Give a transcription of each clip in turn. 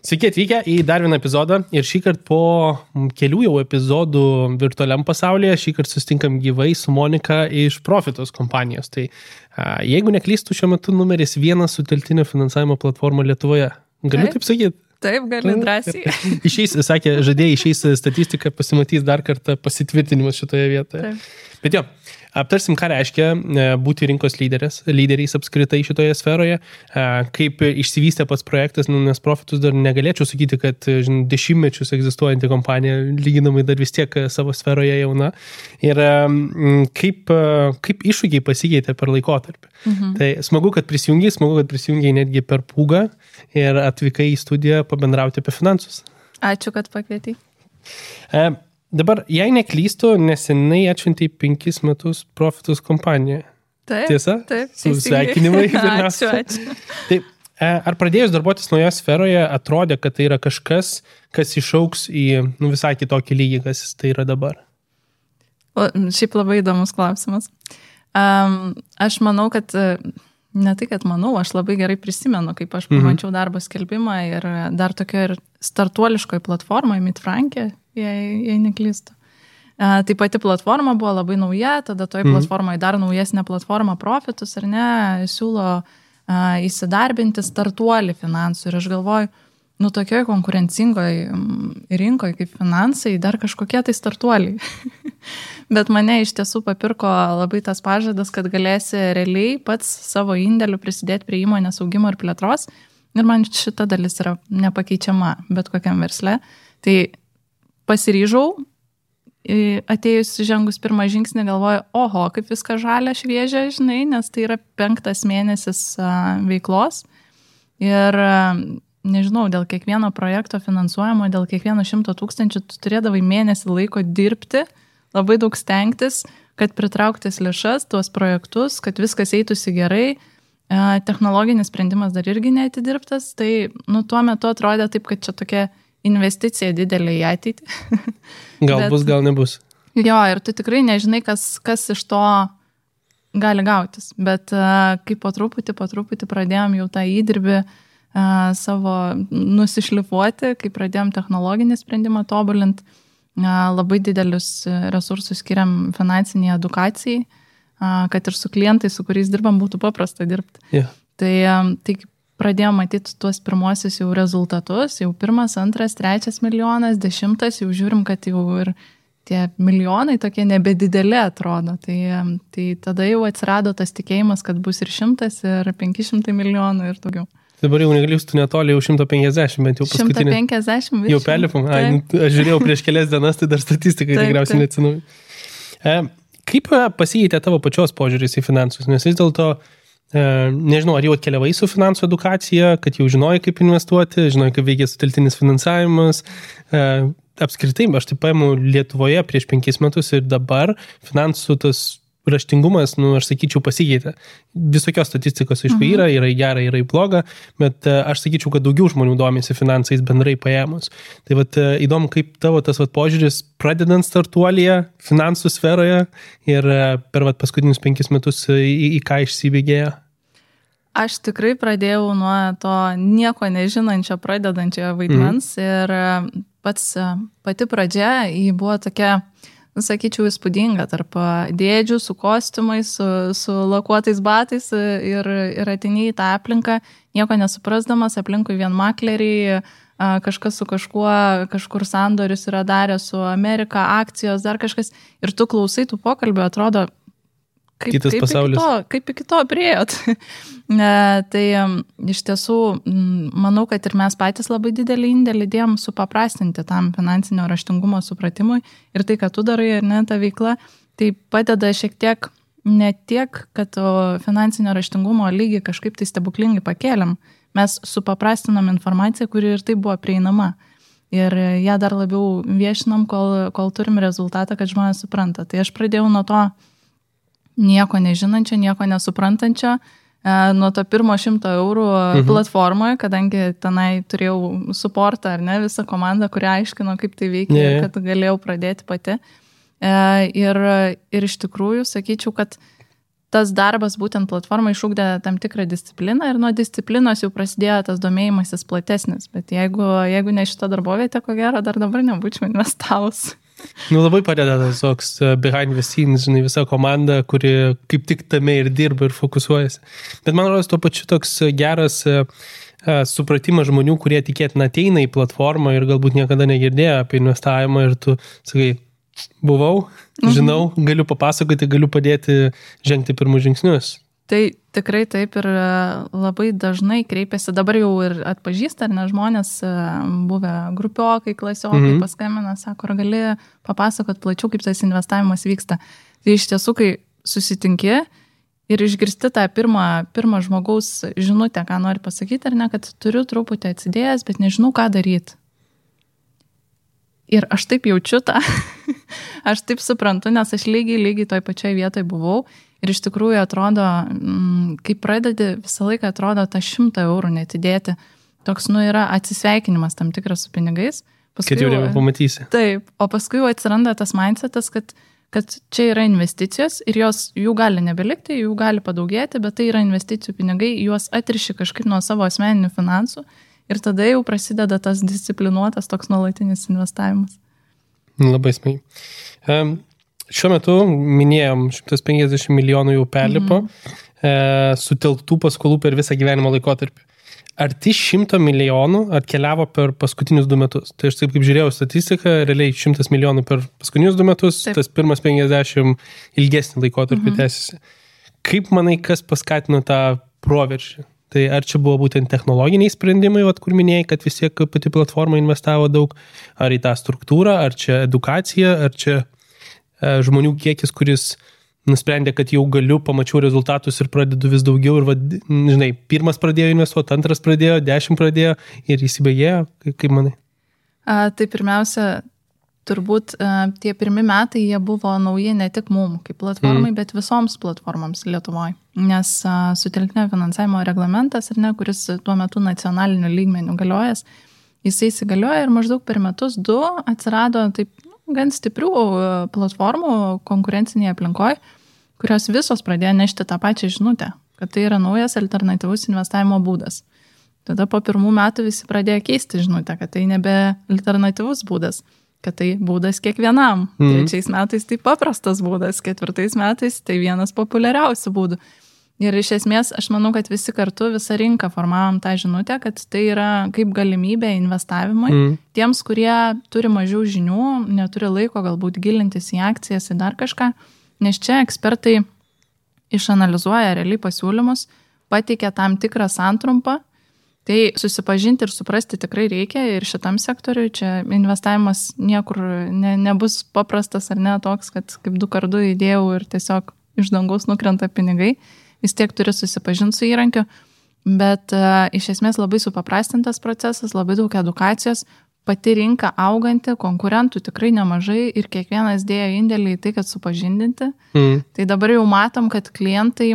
Sveiki atvykę į dar vieną epizodą ir šįkart po kelių jau epizodų virtualiam pasaulyje, šįkart susitinkam gyvai su Monika iš Profitus kompanijos. Tai jeigu neklystu, šiuo metu numeris 1 sutelktinio finansavimo platforma Lietuvoje. Galiu taip sakyti? Taip, gali drąsiai. Išeis, sakė, žadėjai išeis statistiką, pasimatys dar kartą pasitvirtinimas šitoje vietoje. Taip. Bet jo, aptarsim, ką reiškia būti rinkos lyderiais apskritai šitoje sferoje, kaip išsivystė pats projektas, nes Profitus dar negalėčiau sakyti, kad dešimtmečius egzistuojanti kompanija lyginamai dar vis tiek savo sferoje jauna ir kaip iššūkiai pasikeitė per laikotarpį. Tai smagu, kad prisijungiai netgi per pūgą ir atvykai į studiją pabendrauti apie finansus. Ačiū, kad pakvietei. Dabar, jei neklystu, nesenai atšventei 5 metus Profitus kompaniją. Taip, Tiesa? Taip. Sveikinimai. Ačiū. Taip, ar pradėjus darbuotis naujoje sferoje, atrodė, kad tai yra kažkas, kas išauks į visai kitokį lygį, kas tai yra dabar? Šiaip labai įdomus klausimas. Aš manau, kad ne tai, kad manau, aš labai gerai prisimenu, kaip aš pamačiau darbo skelbimą ir dar tokio ir startuoliškoj platformoje, Midfrankė, jei neklystu. Tai pati platforma buvo labai nauja, tada toj platformoje dar naujesnė platforma Profitus, ar ne, siūlo įsidarbinti startuolį finansų. Ir aš galvoju, tokioj konkurencingoj rinkoje kaip finansai, dar kažkokie tai startuoliai. Bet mane iš tiesų papirko labai tas pažadas, kad galėsi realiai pats savo indėliu prisidėti prie įmonės augimo ir plėtros. Ir man šita dalis yra nepakeičiama bet kokiam versle. Tai pasiryžau, atėjus žengus pirmą žingsnį, galvoju, oho, kaip viskas žalia, šviežia, žinai, nes tai yra 5 mėnesis veiklos. Ir nežinau, dėl kiekvieno projekto finansuojamo, dėl kiekvieno 100 000 tu turėdavai mėnesį laiko dirbti, labai daug stengtis, kad pritrauktis lėšas, tuos projektus, kad viskas eitųsi gerai. Technologinis sprendimas dar irgi neatidirbtas, tai tuo metu atrodė taip, kad čia tokia investicija didelė į ateitį. Gal bus, gal nebus. Jo, ir tu tikrai nežinai, kas iš to gali gautis. Bet kai po truputį pradėjom jau tą įdirbį savo nusišlifuoti, kai pradėjom technologinį sprendimą tobulinti, labai didelius resursus skiriam finansiniai edukacijai, kad ir su klientais, su kuriais dirbam, būtų paprasta dirbti. Yeah. Tai pradėjom matyti tuos pirmuosius jau rezultatus, jau 1, 2, 3 milijonas, 10, jau žiūrim, kad jau ir tie milijonai tokie nebedideli atrodo. Tai tada jau atsirado tas tikėjimas, kad bus ir 100, ir 500 milijonų ir daugiau. Dabar jau neklystu netoli, jau 150, bent jau paskutinį. 150 virš. Jau perlipom. Aš žiūrėjau prieš kelias dienas, tai dar statistikai tikriausiai neatsinauja. Kaip pasikeitė tavo pačios požiūris į finansus? Nes vis dėlto nežinau, ar jau atkeliavai su finansų edukacija, kad jau žinojai, kaip investuoti, žinojai, kaip veikia sutelktinis finansavimas. Apskritai, aš taip paimu Lietuvoje prieš 5 metus ir dabar finansų tas raštingumas, aš sakyčiau, pasikeitė. Visokios statistikos, aišku, yra į gerą, yra į blogą, bet aš sakyčiau, kad daugiau žmonių domisi finansais bendrai paėmus. Tai įdomu, kaip tavo tas požiūris pradedant startuolyje, finansų sferoje ir per paskutinius 5 metus į ką išsibėgėjo? Aš tikrai pradėjau nuo to nieko nežinančio pradedančio vaidmens ir pati pradžia buvo tokia, sakyčiau, įspūdinga tarp dėdžių su kostiumais, su lakuotais batais ir atėjai į tą aplinką, nieko nesuprasdamas, aplinkui vien makleriai, kažkas su kažkuo, kažkur sandorius yra darę su Amerika, akcijos, dar kažkas, ir tu klausai tų pokalbių, atrodo, kitas pasaulis. Kaip iki to priėjot. Tai iš tiesų, manau, kad ir mes patys labai didelį indėlį dėjom supaprastinti tam finansinio raštingumo supratimui ir tai, kad tu darai ir ne ta veikla, tai padeda šiek tiek, ne tiek, kad finansinio raštingumo lygį kažkaip tai stebuklingai pakėlėm, mes supaprastinom informaciją, kuri ir tai buvo prieinama. Ir ją dar labiau viešinam, kol turim rezultatą, kad žmonės supranta. Tai aš pradėjau nuo to nieko nežinančio, nieko nesuprantančio, nuo to pirmo 100 eurų platformoje, kadangi tenai turėjau suportą, ar ne, visą komandą, kuri aiškino, kaip tai veikia, kad galėjau pradėti pati. Ir iš tikrųjų, sakyčiau, kad tas darbas būtent platformai išugdė tam tikrą discipliną ir nuo disciplinos jau prasidėjo tas domėjimasis platesnis. Bet jeigu ne šita darbovietė, ko gero, dar dabar nebūčiau investavus. Labai padeda tas toks behind the scenes, žinai, visa komanda, kuri kaip tik tame ir dirba ir fokusuojasi. Bet man rodos tuo pačiu toks geras supratimas žmonių, kurie tikėtina ateina į platformą ir galbūt niekada negirdėjo apie investavimą ir tu sakai, buvau, žinau, galiu papasakoti, galiu padėti žengti pirmus žingsnius. Tai tikrai taip ir labai dažnai kreipiasi, dabar jau ir atpažįsta, ar ne žmonės buvę grupiokai, klasiokai, paskambina, sako, ar gali papasakot plačiau, kaip tas investavimas vyksta. Tai iš tiesų, kai susitinki ir išgirsti tą pirmą žmogaus žinutę, ką nori pasakyti, ar ne, kad turiu truputį atsidėjęs, bet nežinau, ką daryti. Ir aš taip jaučiu tą, aš taip suprantu, nes aš lygiai toj pačioj vietoj buvau ir iš tikrųjų atrodo, kai pradedi, visą laiką atrodo tą 100 eurų netidėti, toks, yra atsisveikinimas tam tikras su pinigais. Paskui, kad jau pamatysi. Taip, o paskui jau atsiranda tas mindsetas, kad čia yra investicijos ir jų gali nebelikti, jų gali padaugėti, bet tai yra investicijų pinigai, juos atriši kažkaip nuo savo asmeninių finansų. Ir tada jau prasideda tas disciplinuotas toks nuolatinis investavimas. Labai smagiai. Šiuo metu minėjom 150 milijonų jau perlipo sutelktų paskolų per visą gyvenimo laikotarpį. Arti 100 milijonų atkeliavo per paskutinius 2 metus. Tai aš taip kaip žiūrėjau statistiką, realiai 100 milijonų per paskutinius 2 metus, taip. Tas pirmas 50 ilgesnį laikotarpį tęsiasi. Kaip manai, kas paskatino tą proveržį? Tai ar čia buvo būtent technologiniai sprendimai, kur minėjai, kad vis tiek pati platforma investavo daug, ar į tą struktūrą, ar čia edukacija, ar čia žmonių kiekis, kuris nusprendė, kad jau galiu, pamačiau rezultatus ir pradedu vis daugiau ir, žinai, pirmas pradėjo investuoti, antras pradėjo, 10 pradėjo ir įsibėgėjo, kaip manai? Tai pirmiausia, turbūt tie pirmi metai jie buvo nauji ne tik mum kaip platformai, bet visoms platformoms Lietuvoje. Nes sutelktinio finansavimo reglamentas, kuris tuo metu nacionaliniu lygmeniu galiojas, jisai įsigalioja ir maždaug per metus 2 atsirado taip gan stiprių platformų konkurencinėje aplinkoje, kurios visos pradėjo nešti tą pačią žinutę, kad tai yra naujas alternatyvus investavimo būdas. Tada po 1 metų visi pradėjo keisti žinutę, kad tai nebe alternatyvus būdas, kad tai būdas kiekvienam. 3 metais tai paprastas būdas, 4 metais tai vienas populiariausių būdų. Ir iš esmės, aš manau, kad visi kartu, visą rinką formavom tą žinutę, kad tai yra kaip galimybė investavimui tiems, kurie turi mažiau žinių, neturi laiko galbūt gilintis į akcijas, į dar kažką, nes čia ekspertai išanalizuoja realiai pasiūlymus, pateikia tam tikrą santrumpą. Tai susipažinti ir suprasti tikrai reikia ir šitam sektoriui. Čia investavimas niekur nebus paprastas ar ne toks, kad kaip 2 kartus įdėjau ir tiesiog iš dangaus nukrenta pinigai. Vis tiek turi susipažinti su įrankiu, bet iš esmės labai supaprastintas procesas, labai daug edukacijos, pati rinka auganti, konkurentų tikrai nemažai ir kiekvienas dėjo indėlį į tai, kad supažindinti. Tai dabar jau matom, kad klientai,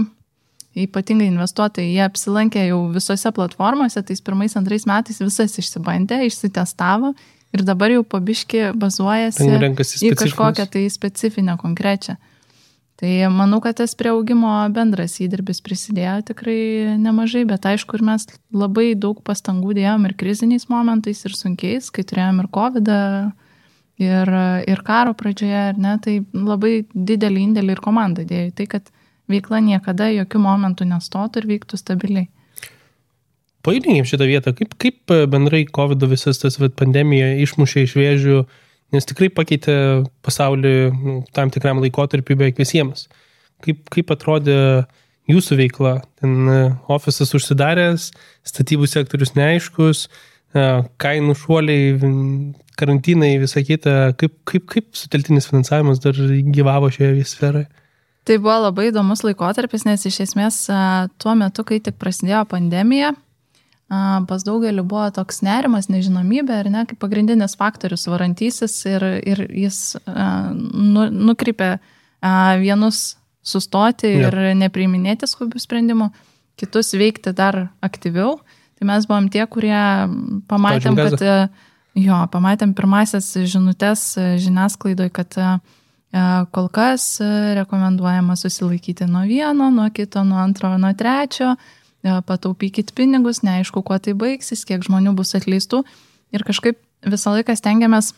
ypatingai investuotojai, jie apsilankė jau visose platformose, tais 1-2 metais visas išsibandė, išsitestavo ir dabar jau pabiški bazuojasi į kažkokią tai specifinę konkrečią. Tai manau, kad tas prie augimo bendras įdirbis prisidėjo tikrai nemažai, bet aišku, ir mes labai daug pastangų dėjom ir kriziniais momentais, ir sunkiais, kai turėjom ir COVID ir karo pradžioje, ar ne, tai labai didelį indėlį ir komanda dėjo. Tai, kad veikla niekada jokių momentų nestotų ir vyktų stabiliai. Paaiškinkim šitą vietą, kaip bendrai COVID visas tas pandemija išmušė iš vėžių, nes tikrai pakeitė pasaulį tam tikram laikotarpiu beveik visiems. Kaip atrodė jūsų veikla? Ten ofisas užsidaręs, statybų sektorius neaiškus, kainų šuoliai, karantinai, visa kita. Kaip sutelktinis finansavimas dar gyvavo šioje sferoje? Tai buvo labai įdomus laikotarpis, nes iš esmės tuo metu, kai tik prasidėjo pandemija, pas daugelį buvo toks nerimas, nežinomybė, ar ne, kaip pagrindinis faktorius varantysis ir jis nukreipė vienus sustoti ir nepriiminėti skubių sprendimų, kitus veikti dar aktyviau. Tai mes buvom tie, kurie pamatėm, pamatėm pirmasias žinutės žiniasklaidoj, kad Kol kas rekomenduojama susilaikyti nuo vieno, nuo kito, nuo antro, nuo trečio, pataupykit pinigus, neaišku, kuo tai baigsis, kiek žmonių bus atleistų. Ir kažkaip visą laiką stengiamės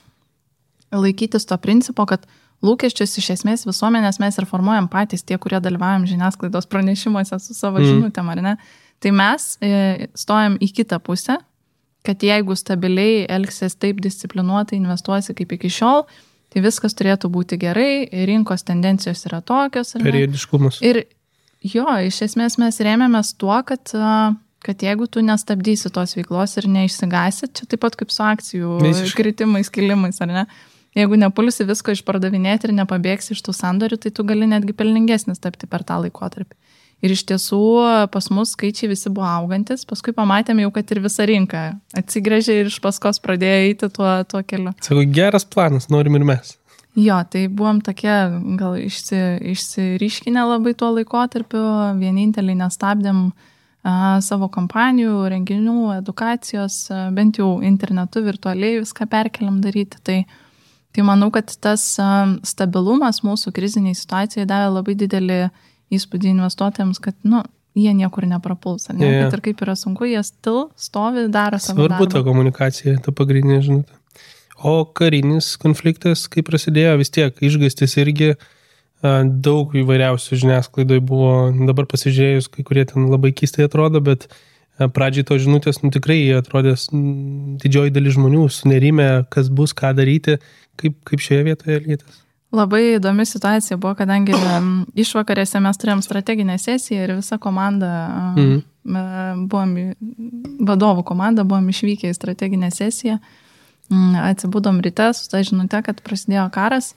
laikytis to principo, kad lūkesčius iš esmės visuomenės mes ir formuojam patys, tie, kurie dalyvaujam žiniasklaidos pranešimuose su savo žinutėm, ar ne? Tai mes stojam į kitą pusę, kad jeigu stabiliai elgsies taip disciplinuotai, investuosi kaip iki šiol, tai viskas turėtų būti gerai, rinkos tendencijos yra tokios. Periodiškumas. Ir jo, iš esmės mes rėmėmės tuo, kad jeigu tu nestabdysi tos veiklos ir neišsigasi, čia taip pat kaip su akcijų kritimais, kilimais, ar ne? Jeigu nepulsi visko išpardavinėti ir nepabėgsi iš tų sandorių, tai tu gali netgi pelningesnis tapti per tą laikotarpį. Ir iš tiesų pas mus skaičiai visi buvo augantis, paskui pamatėme jau, kad ir visa rinka atsigrėžė ir iš paskos pradėjo eiti tuo keliu. Sako, geras planas, norim ir mes. Jo, tai buvom tokie gal išsiryškinę labai tuo laikotarpiu, vieninteliai nestabdėm savo kompanijų, renginių, edukacijos, bent jau internetu virtualiai viską perkeliam daryti. Tai manau, kad tas stabilumas mūsų kriziniai situacijai davė labai didelį įspūdį investuotojams, kad, jie niekur neprapuls, ne? Yeah. Kad ir kaip yra sunku, jie stovi, daro savo darbą. Svarbu ta komunikacija, ta pagrindinė žinutė. O karinis konfliktas, kai prasidėjo, vis tiek išgąstis irgi daug įvairiausių žiniasklaidoj buvo, dabar pasižiūrėjus, kai kurie ten labai keistai atrodo, bet pradžiai to žinutės, tikrai atrodės didžioji dalis žmonių sunerime, kas bus, ką daryti, kaip šioje vietoje elgėtės. Labai įdomi situacija buvo, kadangi išvakarėse mes turėjom strateginę sesiją ir visa komanda, vadovų komanda, buvom išvykę į strateginę sesiją, atsibudom ryte su ta žinute, kad prasidėjo karas.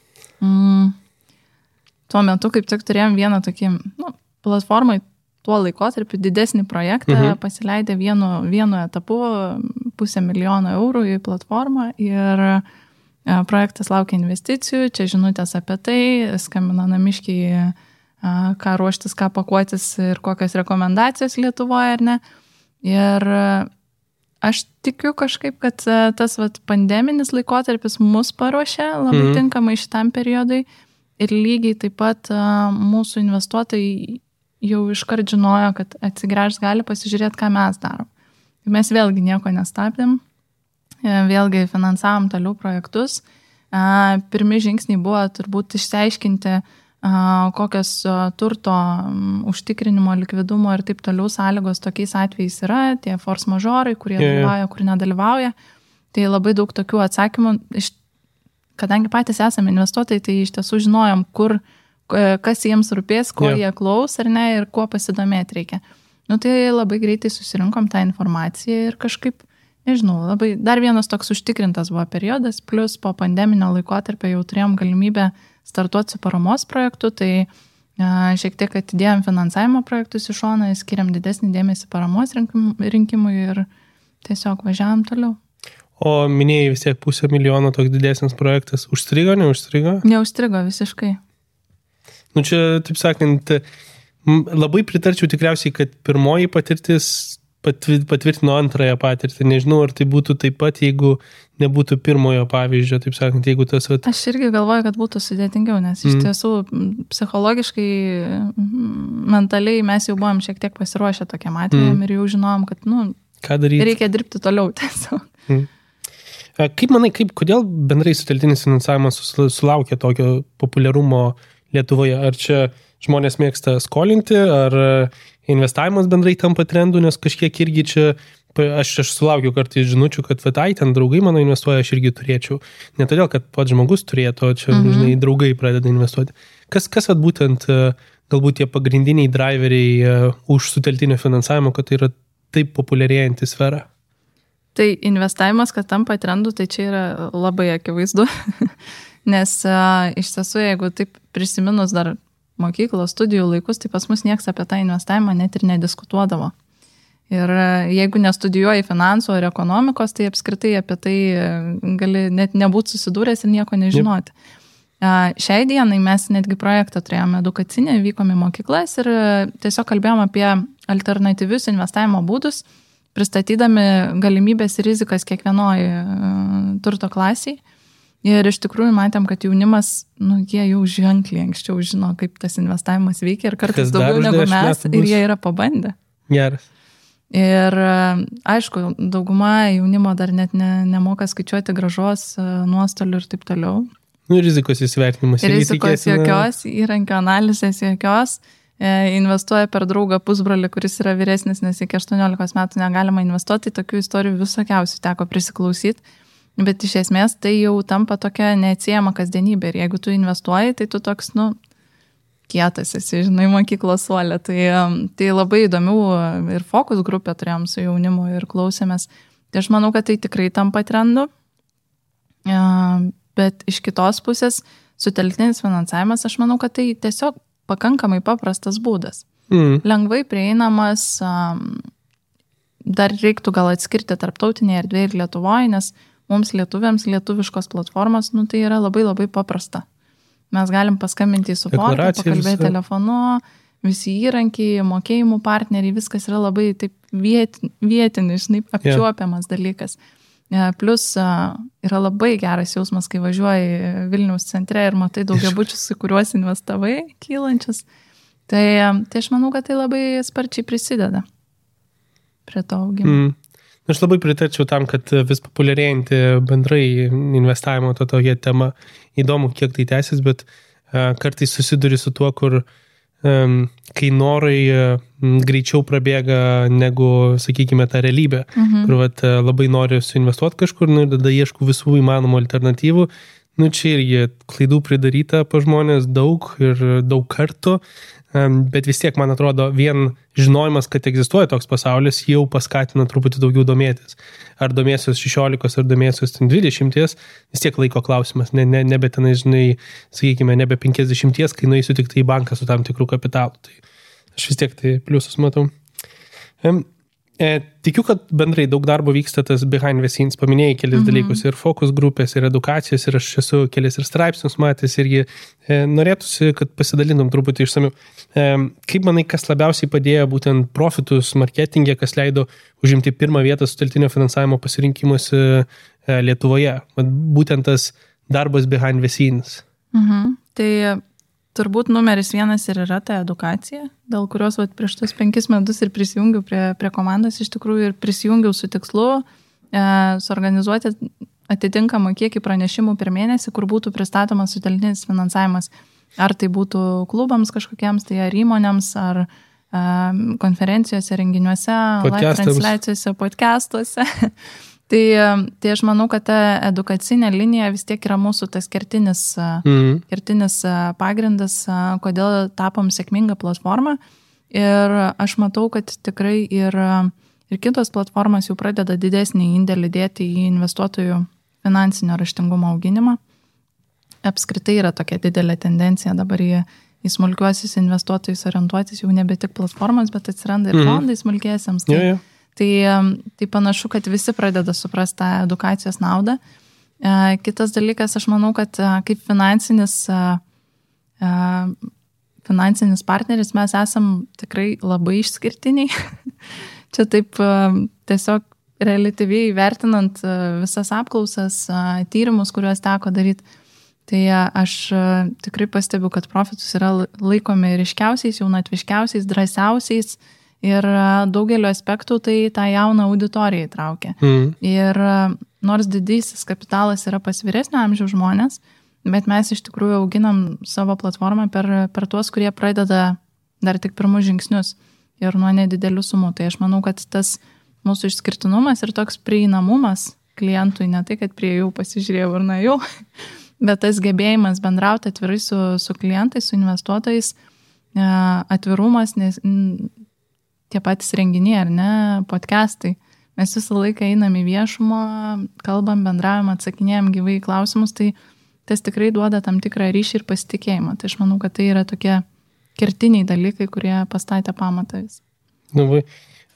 Tuo metu kaip tik turėjom vieną tokį platformai tuo laikotarpiu didesnį projektą, pasileidę vienu etapu 500 000 eurų į platformą ir projektas laukia investicijų, čia žinutės apie tai, skambina namiškiai, ką ruoštis, ką pakuotis ir kokios rekomendacijos Lietuvoje, ar ne. Ir aš tikiu kažkaip, kad tas pandeminis laikotarpis mus paruošė labai tinkamai šitam periodui ir lygiai taip pat mūsų investuotojai jau iškart žinojo, kad atsigręžs gali pasižiūrėti, ką mes darom. Mes vėlgi nieko nestabdėm. Vėlgi finansavom toliau projektus. Pirmi žingsniai buvo turbūt išsiaiškinti, kokios turto užtikrinimo, likvidumo ir taip toliau sąlygos tokiais atvejais yra, tie force majorai, kurie dalyvauja, kur nedalyvauja. Tai labai daug tokių atsakymų. Kadangi patys esame investuotojai, tai iš tiesų žinojom, kas jiems rūpės, ko jie klaus ar ne ir kuo pasidomėti reikia. Tai labai greitai susirinkom tą informaciją ir kažkaip nežinau, labai dar vienas toks užtikrintas buvo periodas, plus po pandeminio laikotarpio jau turėjom galimybę startuoti su paramos projektu, tai šiek tiek atidėjom finansavimo projektus į šoną, skiriam didesnį dėmesį paramos rinkimui ir tiesiog važiavam toliau. O minėjai vis tiek 500 000 toks didesnis projektas, užstrigo, neužstrigo? Neužstrigo visiškai. Čia, taip sakant, labai pritarčiau tikriausiai, kad pirmoji patirtis patvirtino antrąją patirtį. Nežinau, ar tai būtų taip pat, jeigu nebūtų pirmojo pavyzdžio, taip sakant, jeigu tas... Aš irgi galvoju, kad būtų sudėtingiau, nes iš tiesų psichologiškai, mentaliai mes jau buvom šiek tiek pasiruošę tokiam atvejam ir jau žinojom, kad, ką daryti? Reikia dirbti toliau tiesiog. Kaip manai, kodėl bendrai sutelktinis finansavimas sulaukia tokio populiarumo Lietuvoje? Ar čia žmonės mėgsta skolinti, ar investavimas bendrai tampa trendu, nes kažkiek irgi čia, aš sulaukiu kartais žinučių, kad ten draugai mano investuoja, aš irgi turėčiau. Ne todėl, kad pats žmogus turėtų, čia draugai pradeda investuoti. Kas būtent galbūt tie pagrindiniai driveriai už sutelktinio finansavimo, kad tai yra taip populiarėjanti sfera? Tai investavimas, kad tampa trendu, tai čia yra labai akivaizdu. Nes iš tiesų, jeigu taip prisiminus dar mokyklos studijų laikus, tai pas mus nieks apie tą investavimą net ir nediskutuodavo. Ir jeigu nestudijuoji finansų ar ekonomikos, tai apskritai apie tai gali net nebūti susidūręs ir nieko nežinoti. Šiai dienai mes netgi projektą turėjome edukacinę, vykom į mokyklas ir tiesiog kalbėjom apie alternatyvius investavimo būdus, pristatydami galimybės ir rizikas kiekvienoj turto klasiai. Ir iš tikrųjų matėm, kad jaunimas, jie jau ženkliai anksčiau žino, kaip tas investavimas veikia ir kartais daugiau negu mes ir jie yra pabandę. Geras. Ir aišku, dauguma jaunimo dar net nemoka skaičiuoti grąžos, nuostolių ir taip toliau. Rizikos įsivertinimas. Rizikos jokios, įrankio analizės jokios. Investuoja per draugą pusbrolį, kuris yra vyresnis, nes iki 18 metų negalima investuoti. Tokių istorijų visokiausių teko prisiklausyti. Bet iš esmės tai jau tampa tokia neatsiejama kasdienybė. Ir jeigu tu investuoji, tai tu toks, kietas esi, žinai, mokyklos suolė. Tai labai įdomių ir fokus grupę turėjom su jaunimu ir klausėmės. Tai aš manau, kad tai tikrai tampa trendu. Bet iš kitos pusės, sutelktinis finansavimas, aš manau, kad tai tiesiog pakankamai paprastas būdas. Lengvai prieinamas, dar reiktų gal atskirti tarptautinėje erdvėje ir Lietuvoje, nes mums lietuviams lietuviškos platformos, tai yra labai labai paprasta. Mes galim paskambinti į suportą, pakalbėti telefonu, visi įrankiai, mokėjimų partneriai, viskas yra labai taip vietinis, apčiuopiamas dalykas. Plus yra labai geras jausmas, kai važiuoji Vilniaus centre ir matai daugiabučius, į kuriuos investavai, kylančius. Tai aš manau, kad tai labai sparčiai prisideda prie to augimo. Aš labai pritarčiau tam, kad vis populiarėjanti bendrai investavimo tokia tema. Įdomu, kiek tai tęsis, bet kartais susiduri su tuo, kur kai norai greičiau prabėga negu, sakykime, ta realybė, kur labai nori suinvestuoti kažkur, ir tada ieškau visų įmanomų alternatyvų. Čia irgi klaidų pridaryta po žmonės daug ir daug kartų, bet vis tiek, man atrodo, vien žinojimas, kad egzistuoja toks pasaulis, jau paskatina truputį daugiau domėtis. Ar domėsios 16, ar domėsios 20, vis tiek laiko klausimas, nebe tenai, žinai, sakykime, nebe 50, kai nueisiu tik tai į banką su tam tikrų kapitalu. Tai aš vis tiek tai pliusus matau. Tikiu, kad bendrai daug darbo vyksta tas behind the scenes, paminėjai kelis dalykus, ir fokus grupės, ir edukacijos, ir aš esu kelis ir straipsnius matęs, irgi norėtųsi, kad pasidalintum truputį išsamiu. Kaip manai, kas labiausiai padėjo būtent profitus marketingė, kas leido užimti pirmą vietą sutelktinio finansavimo pasirinkimuose Lietuvoje? Būtent tas darbas behind the scenes. Tai turbūt numeris 1 ir yra ta edukacija, dėl kurios prieš tos 5 metus ir prisijungiau prie komandos, iš tikrųjų ir prisijungiau su tikslu suorganizuoti atitinkamą kiekį pranešimų per mėnesį, kur būtų pristatomas sutelktinis finansavimas. Ar tai būtų klubams kažkokiems, tai ar įmonėms, ar konferencijose, renginiuose, live transliacijose, podcastuose. Tai aš manau, kad ta edukacinė linija vis tiek yra mūsų tas kertinis pagrindas, kodėl tapom sėkmingą platformą. Ir aš matau, kad tikrai ir kitos platformos jau pradeda didesnį indėlį dėti į investuotojų finansinio raštingumo auginimą. Apskritai yra tokia didelė tendencija dabar į smulkiuosius investuotojus orientuotis, jau nebe tik platformos, bet atsiranda ir fondai smulkiesiems. Tai panašu, kad visi pradeda suprasti tą edukacijos naudą. Kitas dalykas, aš manau, kad kaip finansinis partneris mes esam tikrai labai išskirtiniai. Čia taip tiesiog relatyviai vertinant visas apklausas, tyrimus, kuriuos teko daryti. Tai aš tikrai pastebiu, kad profitus yra laikomi ryškiausiais, jaunatviškiausiais, drąsiausiais. Ir daugelio aspektų tai tą jauną auditoriją įtraukia. Ir nors didysis kapitalas yra pas vyresnio amžiaus žmonės, bet mes iš tikrųjų auginam savo platformą per tuos, kurie pradeda dar tik pirmus žingsnius ir nuo nedidelių sumų. Tai aš manau, kad tas mūsų išskirtinumas ir toks prieinamumas klientui, ne tai, kad prie jų pasižiūrėjau ir nuėjau, bet tas gebėjimas bendrauti atvirai su klientais, su investuotojais, atvirumas, nes tie patys renginiai, ar ne, podcastai. Mes visą laiką einam į viešumą, kalbam, bendraujam, atsakinėjam gyvai klausimus, tai tas tikrai duoda tam tikrą ryšį ir pasitikėjimą. Tai aš manau, kad tai yra tokie kertiniai dalykai, kurie pastatė pamatą vis.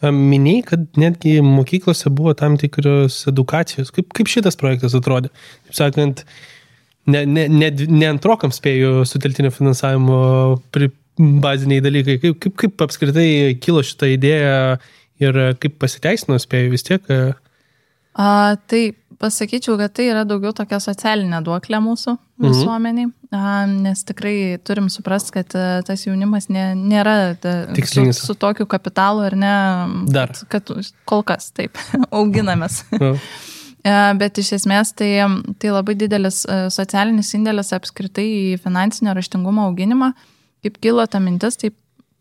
Minėjai, kad netgi mokyklose buvo tam tikros edukacijos. Kaip šitas projektas atrodė? Taip sakant, ne antrokam spėjų sutelktinio finansavimo baziniai dalykai. Kaip apskritai kilo šitą idėją ir kaip pasiteisino spėjų vis tiek? Tai pasakyčiau, kad tai yra daugiau tokia socialinė duoklė mūsų visuomeniai, nes tikrai turim suprasti, kad tas jaunimas nėra su tokiu kapitalu ir ne, kad kol kas taip auginamės. Bet iš esmės tai labai didelis socialinis indėlis apskritai į finansinio raštingumo auginimą. Kaip kilo ta mintis, taip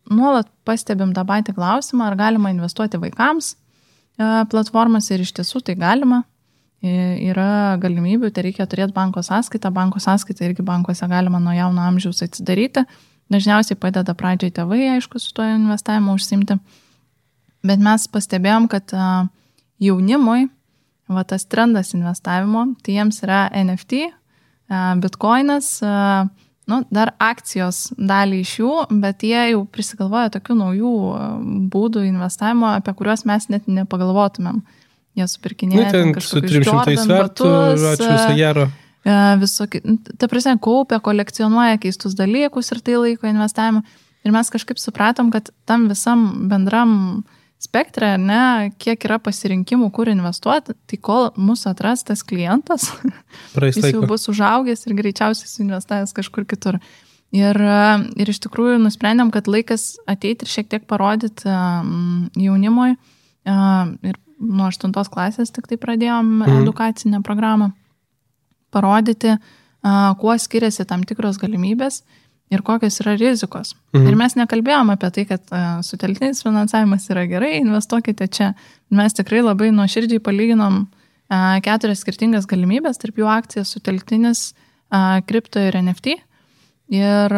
nuolat pastebim tą patį klausimą, ar galima investuoti vaikams platformas ir iš tiesų tai galima. Yra galimybių, tai reikia turėti banko sąskaitą irgi bankuose galima nuo jauno amžiaus atsidaryti. Dažniausiai padeda pradžiai tėvai, aišku, su to investavimu užsimti. Bet mes pastebėjom, kad jaunimui tas trendas investavimo, tai jiems yra NFT, Bitcoinas, dar akcijos dalį iš jų, bet jie jau prisigalvoja tokių naujų būdų investavimo, apie kuriuos mes net nepagalvotumėm. Jie supirkinėja kažkokius Jordan batus, visokie, ta prasme, kaupia, kolekcionuoja keistus dalykus ir tai laiko investavimą. Ir mes kažkaip supratom, kad tam visam bendram spektre, kiek yra pasirinkimų, kur investuoti, tai kol mūsų atras tas klientas, jis jau bus užaugęs ir greičiausiai suinvestavęs kažkur kitur. Ir iš tikrųjų nusprendėm, kad laikas ateiti ir šiek tiek parodyti jaunimui. Ir nuo 8 klasės tik tai pradėjom edukacinę programą parodyti, kuo skiriasi tam tikros galimybės ir kokios yra rizikos. Ir mes nekalbėjom apie tai, kad sutelktinis finansavimas yra gerai, investuokite čia. Mes tikrai labai nuoširdžiai palyginom 4 skirtingas galimybės, tarp jų akcijas, sutelktinis, kripto ir NFT. Ir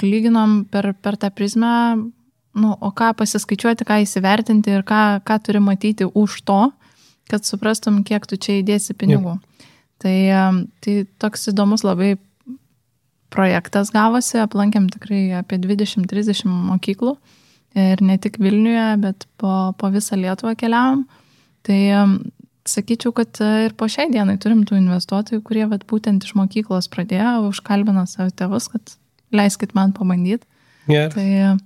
lyginom per tą prizmę, o ką pasiskaičiuoti, ką įsivertinti ir ką turi matyti už to, kad suprastum, kiek tu čia įdėsi pinigų. Tai toks įdomus labai projektas gavosi, aplankėm tikrai apie 20-30 mokyklų ir ne tik Vilniuje, bet po visą Lietuvą keliavom. Tai sakyčiau, kad ir po šiai dienai turim tų investuotojų, kurie būtent iš mokyklos pradėjo, užkalbino savo tėvus, kad leiskit man pabandyti. Yeah.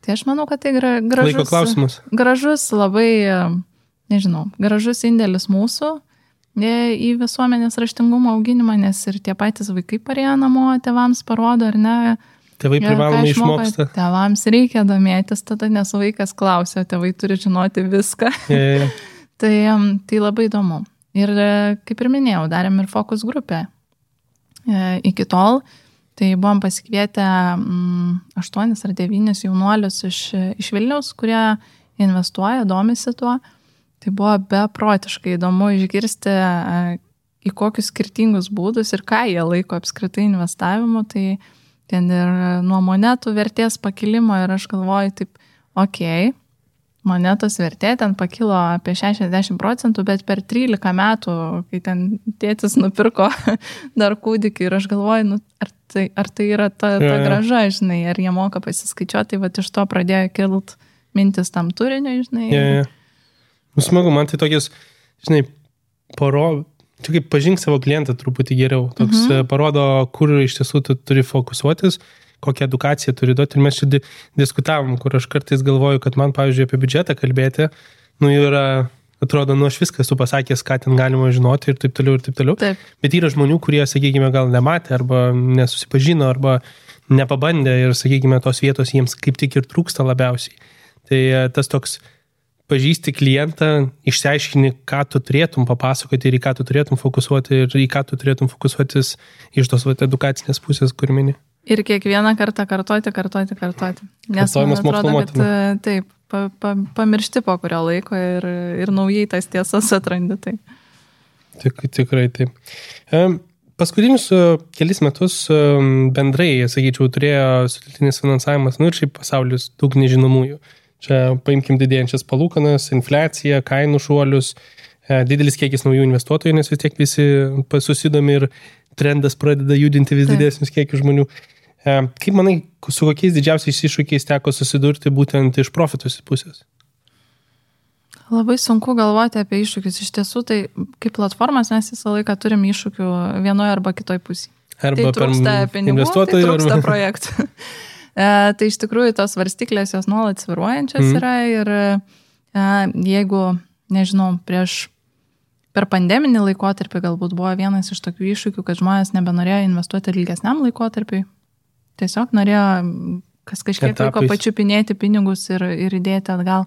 Tai aš manau, kad tai gražus labai, gražus indėlis mūsų į visuomenės raštingumo auginimą, nes ir tie patys vaikai parėjo namo, tėvams parodo, ar ne. Tėvai privalomai išmoksta. Tėvams reikia domėtis tada, nes vaikas klausia, tėvai turi žinoti viską. Yeah. Tai labai įdomu. Ir kaip ir minėjau, darėm ir fokus grupę. Iki tol, tai buvom pasikvietę 8 ar 9 jaunuolius iš Vilniaus, kurie investuoja, domisi tuo. Tai buvo beprotiškai įdomu išgirsti, į kokius skirtingus būdus ir ką jie laiko apskritai investavimu. Tai ten ir nuo monetų vertės pakilimo ir aš galvoju taip, monetos vertė ten pakilo apie 60%, bet per 13 metų, kai ten tėtis nupirko dar kūdikį ir aš galvoju, ar tai yra ta graža, ar jie moka pasiskaičiuoti, tai iš to pradėjo kilt mintis tam turiniu, Smagu, man tai tokias, tu kaip pažink savo klientą truputį geriau, toks parodo, kur iš tiesų tu turi fokusuotis, kokią edukaciją turi duoti. Ir mes čia diskutavom, kur aš kartais galvoju, kad man, pavyzdžiui, apie biudžetą kalbėti, yra, atrodo, aš viską esu pasakęs, ką ten galima žinoti ir taip toliau, ir taip toliau. Taip. Bet yra žmonių, kurie, sakykime, gal nematė arba nesusipažino arba nepabandė ir, sakykime, tos vietos jiems kaip tik ir trūksta labiausiai. Tai tas toks pažįsti klientą, išsiaiškini, ką tu turėtum papasakoti ir į ką tu turėtum fokusuoti ir į ką tu turėtum fokusuotis iš tos edukacinės pusės, kur mini. Ir kiekvieną kartą kartoti. Nes man atrodo, kad taip, pamiršti po kurio laiko ir naujai tas tiesas atrandi. Tai. Tikrai taip. Paskutinius kelis metus bendrai, sakyčiau, turėjo sutelktinis finansavimas, ir šiaip pasaulis daug nežinomųjų. Čia paimkim didėjančias palūkanas, infliaciją, kainų šuolius, didelis kiekis naujų investuotojų, nes vis tiek visi susidomi ir trendas pradeda judinti vis didesnius kiekius žmonių. Kaip manai, su kokiais didžiausiais iššūkiais teko susidurti būtent iš profitus pusės? Labai sunku galvoti apie iššūkius. Iš tiesų, tai kaip platformas mes visą laiką turim iššūkių vienoje arba kitoj pusėje. Arba tai trūksta pinigų, tai trūksta projektų. Tai iš tikrųjų tos varstyklės jos nuolat sviruojančios yra ir jeigu, prieš per pandeminį laikotarpį galbūt buvo vienas iš tokių iššūkių, kad žmonės nebenorėjo investuoti ilgesniam laikotarpiui. Tiesiog norėjo kažkiek laiko pačiupinėti pinigus ir įdėti atgal.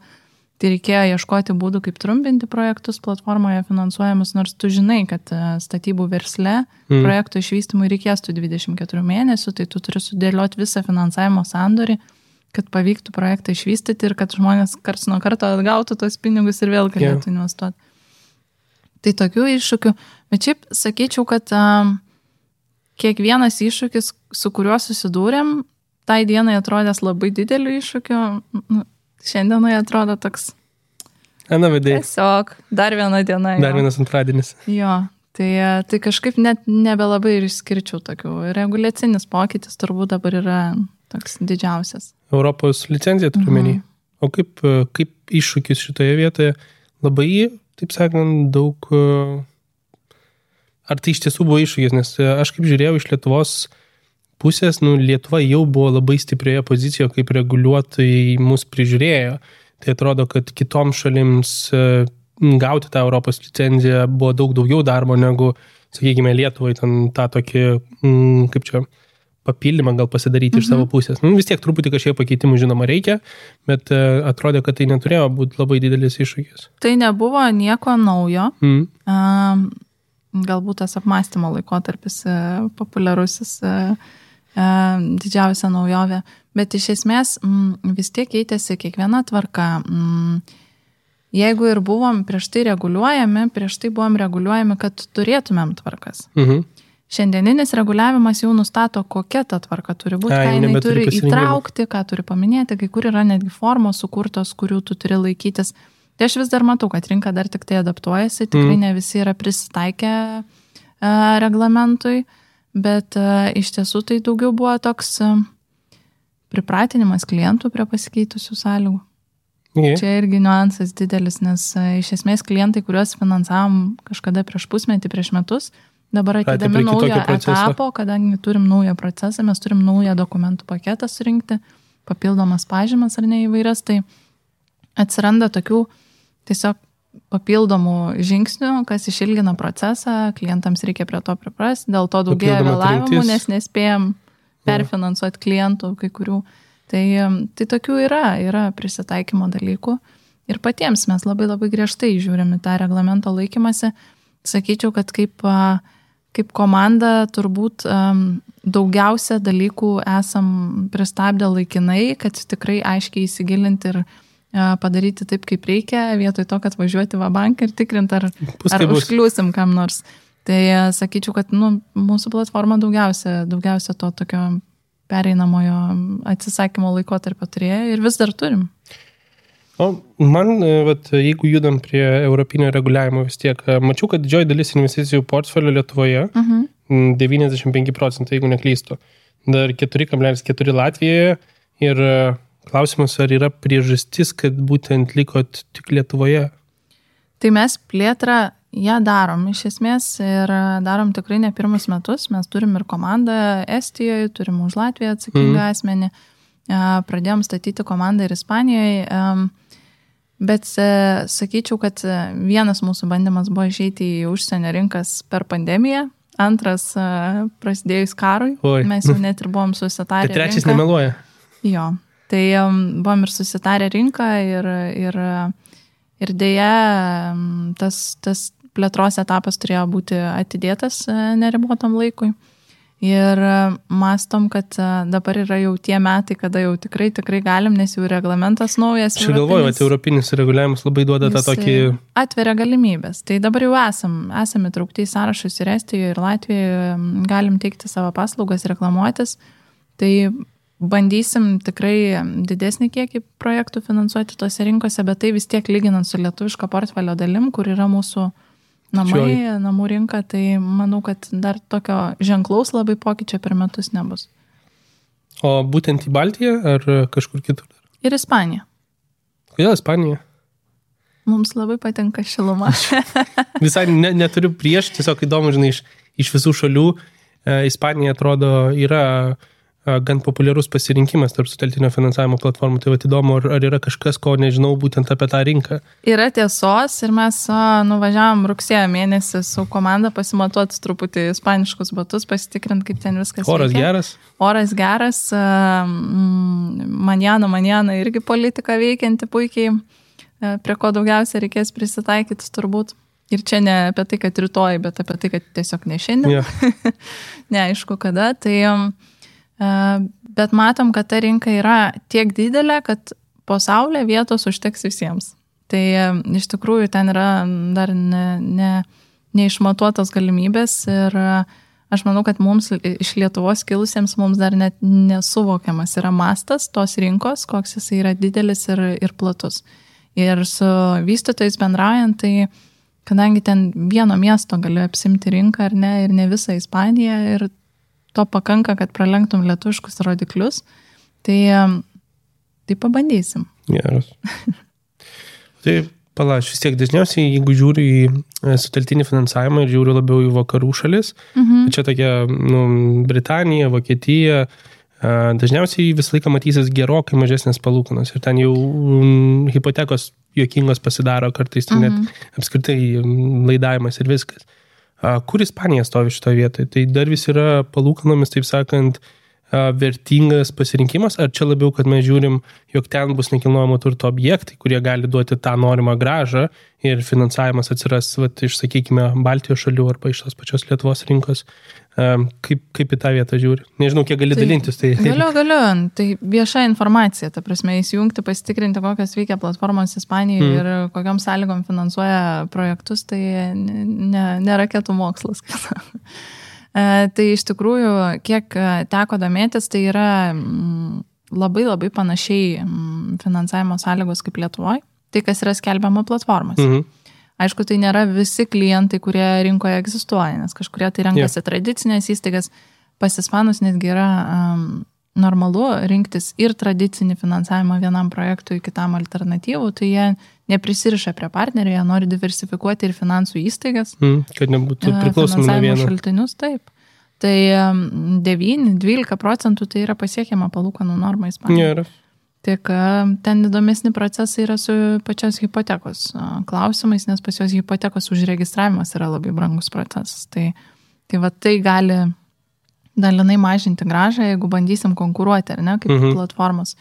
Tai reikėjo ieškoti būdų, kaip trumpinti projektus platformoje finansuojamus, nors tu žinai, kad statybų versle projektų išvystymui reikės tų 24 mėnesių, tai tu turi sudėlioti visą finansavimo sandorį, kad pavyktų projektą išvystyti ir kad žmonės karts nuo karto atgautų tos pinigus ir vėl galėtų investuoti. Tai tokių iššūkių. Bet šiaip sakyčiau, kad kiekvienas iššūkis, su kuriuo susidūrėm, tai dienai atrodęs labai dideliu iššūkiu, šiandienai atrodo toks. Tiesiog, dar viena diena. Dar vienas antradienis. Jo, tai kažkaip net nebelabai ir išskirčiau tokių. Reguliacinis pokytis turbūt dabar yra toks didžiausias. Europos licencija turiu menį. O kaip iššūkis šitoje vietoje? Labai, taip sakant, daug. Ar tai iš tiesų buvo iššūkis? Nes aš kaip žiūrėjau iš Lietuvos pusės, Lietuva jau buvo labai stiprioje pozicijoje, kaip reguliuotojai mus prižiūrėjo. Tai atrodo, kad kitoms šalims gauti tą Europos licenciją buvo daug daugiau darbo negu, sakykime, Lietuvai ten tą tokį, kaip čia, papildymą gal pasidaryti iš savo pusės. Vis tiek truputį kažkiek pakeitimų, žinoma, reikia, bet atrodė, kad tai neturėjo būti labai didelis iššūkis. Tai nebuvo nieko naujo. Galbūt tas apmąstymo laikotarpis populiarusis didžiausia naujovė, bet iš esmės vis tiek keitėsi kiekviena tvarka. Jeigu ir buvom prieš tai buvom reguliuojami, kad turėtumėm tvarkas. Šiandieninis reguliavimas jau nustato, kokia ta tvarka turi būti, ką jinai turi įtraukti, ką turi paminėti, kai kur yra netgi formos sukurtos, kurių tu turi laikytis. Tai aš vis dar matau, kad rinka dar tik tai adaptuojasi, tikrai ne visi yra prisitaikę reglamentui. Bet iš tiesų tai daugiau buvo toks pripratinimas klientų prie pasikeitusių sąlygų. Čia irgi niuansas didelis, nes iš esmės klientai, kuriuos finansavom kažkada prieš pusmetį, prieš metus, dabar atidami naujo etapo, kadangi turim naują procesą, mes turim naują dokumentų paketą surinkti, papildomas pažymas ar ne įvairias, tai atsiranda tokių tiesiog papildomų žingsnių, kas išilgina procesą, klientams reikia prie to priprasti, dėl to daugėja vėlavimų, nes nespėjom perfinansuoti klientų kai kurių. Tai tokių yra prisitaikymo dalykų ir patiems mes labai labai griežtai žiūrim į tą reglamento laikymąsi. Sakyčiau, kad kaip komanda turbūt daugiausia dalykų esam pristabdę laikinai, kad tikrai aiškiai įsigilinti ir padaryti taip, kaip reikia, vietoj to, kad važiuoti va banką ir tikrinti, ar užkliūsim kam nors. Tai sakyčiau, kad mūsų platforma daugiausia to tokio pereinamojo atsisakymo laikotarpio turėjo ir vis dar turim. O man, jeigu judam prie europinio reguliavimo vis tiek, mačiau, kad didžioji dalis investicijų portfelio Lietuvoje, 95%, jeigu neklystu, dar 4,4 Latvijoje ir klausimas, ar yra priežastis, kad būtent likot tik Lietuvoje? Tai mes plėtrą ją darom iš esmės ir darom tikrai ne pirmus metus. Mes turim ir komandą Estijoje, turim už Latviją atsakingą asmenį. Pradėjom statyti komandą ir Ispanijoje. Bet sakyčiau, kad vienas mūsų bandymas buvo išeiti į užsienio rinkas per pandemiją. Antras prasidėjus karui. Mes jau net ir buvom susitarę. Tai trečias nemeluoja. Jo. Tai buvom ir susitarę rinką ir dėja tas plėtros etapas turėjo būti atidėtas neribotam laikui. Ir mastom, kad dabar yra jau tie metai, kada jau tikrai galim, nes jau reglamentas naujas. Aš galvoju, kad europinis reguliavimas labai duoda tą tokį... Atveria galimybės. Tai dabar jau esame įtraukti į sąrašus ir Estijoje, ir Latvijoje, galim teikti savo paslaugas, reklamuotis. Tai bandysim tikrai didesnį kiekį projektų finansuoti tose rinkose, bet tai vis tiek lyginant su lietuviško portfelio dalim, kur yra mūsų namų rinka, tai manau, kad dar tokio ženklaus labai pokyčio per metus nebus. O būtent į Baltiją ar kažkur kitur? Ir Ispanija. Kodėl Ispanija? Mums labai patinka šiluma. Visai neturiu prieš, tiesiog įdomu, žinai, iš visų šalių Ispanija atrodo yra gan populiarus pasirinkimas tarp sutelktinio finansavimo platformų. Tai įdomu, ar yra kažkas, ko nežinau būtent apie tą rinką. Yra tiesos ir mes nuvažiavam rugsėjo mėnesį su komanda pasimatuoti truputį ispaniškus batus, pasitikrinti, kaip ten viskas Oras veikia. Geras? Oras geras. Manjana irgi politika veikianti puikiai, prie ko daugiausia reikės prisitaikyti turbūt. Ir čia ne apie tai, kad rytoj, bet apie tai, kad tiesiog ne šiandien. Yeah. Neaišku kada. Bet matom, kad ta rinka yra tiek didelė, kad po saulė vietos užteks visiems. Tai iš tikrųjų ten yra dar neišmatuotos galimybės ir aš manau, kad mums iš Lietuvos kilusiems mums dar net nesuvokiamas yra mastas tos rinkos, koks jis yra didelis ir platus. Ir su vystytojais bendraujant, tai kadangi ten vieno miesto gali apsimti rinką ar ne, ir ne visą Ispaniją, ir to pakanka, kad pralenktum lietuviškus rodiklius, tai pabandysim. Geras. Tai palaš, vis tiek dažniausiai, jeigu žiūri į sutelktinį finansavimą ir žiūri labiau į vakarų šalis, čia tokia Britanija, Vokietija, dažniausiai visą laiką matysis gerokai mažesnės palūkanos ir ten jau hipotekos juokingos pasidaro kartais, net apskritai laidavimas ir viskas. Kur Ispanija stovi šitoje vietoje? Tai dar vis yra palūkanomis, taip sakant, vertingas pasirinkimas, ar čia labiau, kad mes žiūrim, jog ten bus nekilnojamo turto objektai, kurie gali duoti tą norimą grąžą ir finansavimas atsiras, iš, sakykime, Baltijos šalių arba iš tos pačios Lietuvos rinkos. Kaip į tą vietą žiūri? Nežinau, kiek gali dalintis. Tai... Galiu. Tai vieša informacija, ta prasme, įsijungti, pasitikrinti, kokios veikia platformos Ispanijoje ir kokiom sąlygom finansuoja projektus, tai ne raketų mokslas. Tai iš tikrųjų, kiek teko domėtis, tai yra labai labai panašiai finansavimo sąlygos kaip Lietuvoje, tai kas yra skelbiama platformos. Aišku, tai nėra visi klientai, kurie rinkoje egzistuoja, nes kažkurie tai renkasi tradicinės įstaigas, pas ispanus netgi yra normalu rinktis ir tradicinį finansavimą vienam projektui, kitam alternatyvų, tai jie neprisiriša prie partnerių, jie nori diversifikuoti ir finansų įstaigas. Kad nebūtų priklausomi nuo vieno. Šaltinius, taip. Tai 9-12% tai yra pasiekiama palūkanų norma Ispanijoje. Tik ten įdomesni procesai yra su pačios hipotekos klausimais, nes pas jos hipotekos užregistravimas yra labai brangus procesas. Tai gali dalinai mažinti grąžą, jeigu bandysim konkuruoti, ar ne, kaip platformos.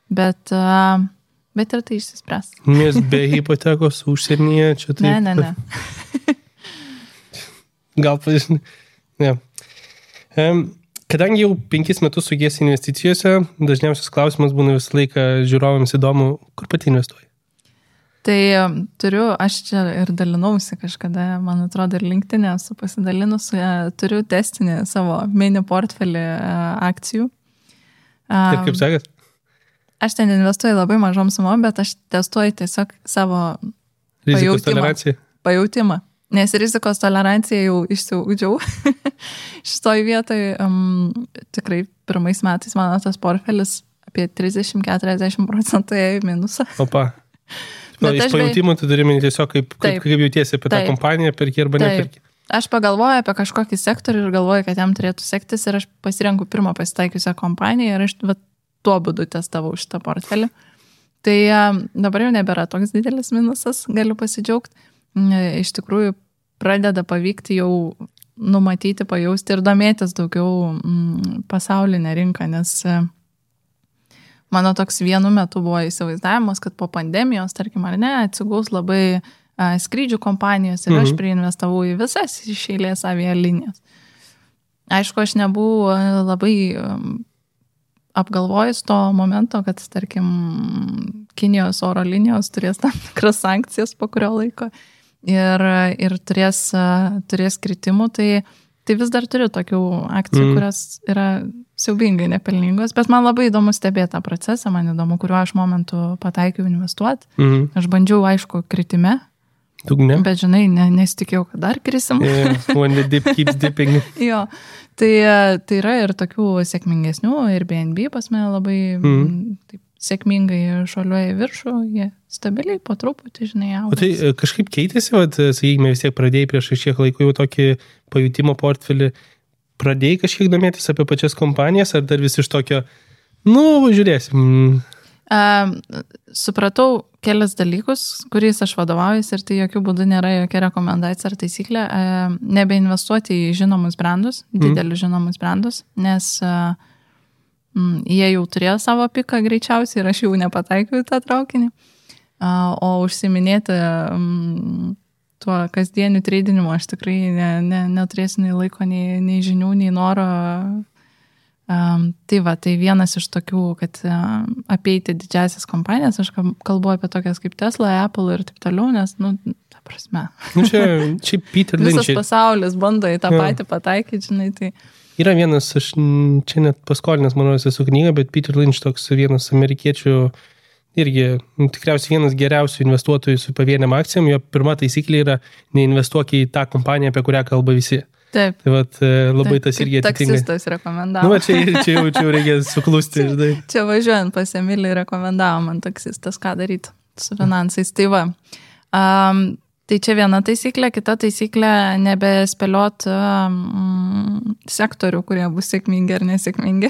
Bet ir tai išsispręs. Nes be hipotekos užsienyje čia taip... Ne. Gal pažinai. Ne. Kadangi jau 5 metus sugiesi investicijose, dažniausias klausimas būna visą laiką žiūrovams įdomu, kur pati investuoji? Tai aš čia ir dalinausi kažkada, man atrodo, ir LinkedIn esu pasidalinus, turiu testinį savo mini portfelį akcijų. Ir kaip sakėt? Aš ten investuoju labai mažom sumom, bet aš testuoju tiesiog savo pajautimą. Nes rizikos toleranciją jau išsiugdžiau. Šitoj vietoj tikrai pirmais metais mano tas portfelis apie 30-40% į minusą. Opa. Iš pajūtimų tu turi minti tiesiog, kaip jautiesi apie tą kompaniją, perki arba neperki. Aš pagalvoju apie kažkokį sektorių ir galvoju, kad jam turėtų sektis ir aš pasirenku pirmą pasitaikiusią kompaniją ir aš tuo būdu testavau šitą portfelį. Tai dabar jau nebėra toks didelis minusas, galiu pasidžiaugti. Iš tikrųjų pradeda pavykti jau numatyti, pajausti ir domėtis daugiau pasaulinę rinką, nes mano toks vienu metu buvo įsivaizdavimas, kad po pandemijos, tarkim ar ne, atsigaus labai skrydžių kompanijos ir aš priinvestavau į visas iš eilės avialinijas. Aišku, aš nebuvau labai apgalvojus to momento, kad, tarkim, Kinijos oro linijos turės tam tikras sankcijas po kurio laiko ir turės kritimų, tai vis dar turiu tokių akcijų, kurios yra siaubingai nepelningos, bet man labai įdomu stebėti tą procesą, man įdomu, kuriuo aš momentu pataikiau investuoti. Aš bandžiau, aišku, kritime, bet žinai, nesitikėjau, kad dar krisim. When the dip keeps dipping. Jo, tai yra ir tokių sėkmingesnių, ir BNB pas mane labai taip sėkmingai šuoliuoja į viršų, jie stabiliai po truputį, žinai, augas. O tai kažkaip keitėsi, sakykime, vis tiek pradėjai prieš šiek laiko jau tokį pajutimo portfelį, pradėjai kažkiek domėtis apie pačias kompanijas, ar dar vis iš tokio, žiūrėsim. Supratau kelias dalykus, kuriais aš vadovaujuosi ir tai jokių būdų nėra jokia rekomendacija ar taisyklė. Nebeinvestuoti į žinomus brandus, didelius žinomus brandus, nes jie jau turėjo savo piką greičiausiai ir aš jau nepataikiau į tą traukinį. O užsiminėti tuo kasdieniu treidinimu aš tikrai neturėsiu nei laiko, nei žinių, nei noro. Tai vienas iš tokių, kad apeiti didžiasias kompanijas, aš kalbu apie tokias kaip Tesla, Apple ir taip toliau, nes, ta prasme. Čia Peter Lynch. Visas pasaulis bando į tą patį pataikyti, žinai, tai. Yra vienas, aš čia net paskolinęs, manau, esu knygą, bet Peter Lynch toks vienas amerikiečių, irgi tikriausiai vienas geriausių investuotojų su pavieniam akcijom, jo pirma taisyklė yra neinvestuok į tą kompaniją, apie kurią kalba visi. Taip. Tai labai tas irgi atitinka. Taksistas rekomendavo. Čia jau reikia suklusti. Čia važiuojant pas Emilį rekomendavo man taksistas, ką daryti su finansais. Tai va. Tai čia viena taisyklė, kita taisyklė nebespėliot sektorių, kurie bus sėkmingi ar nesėkmingi.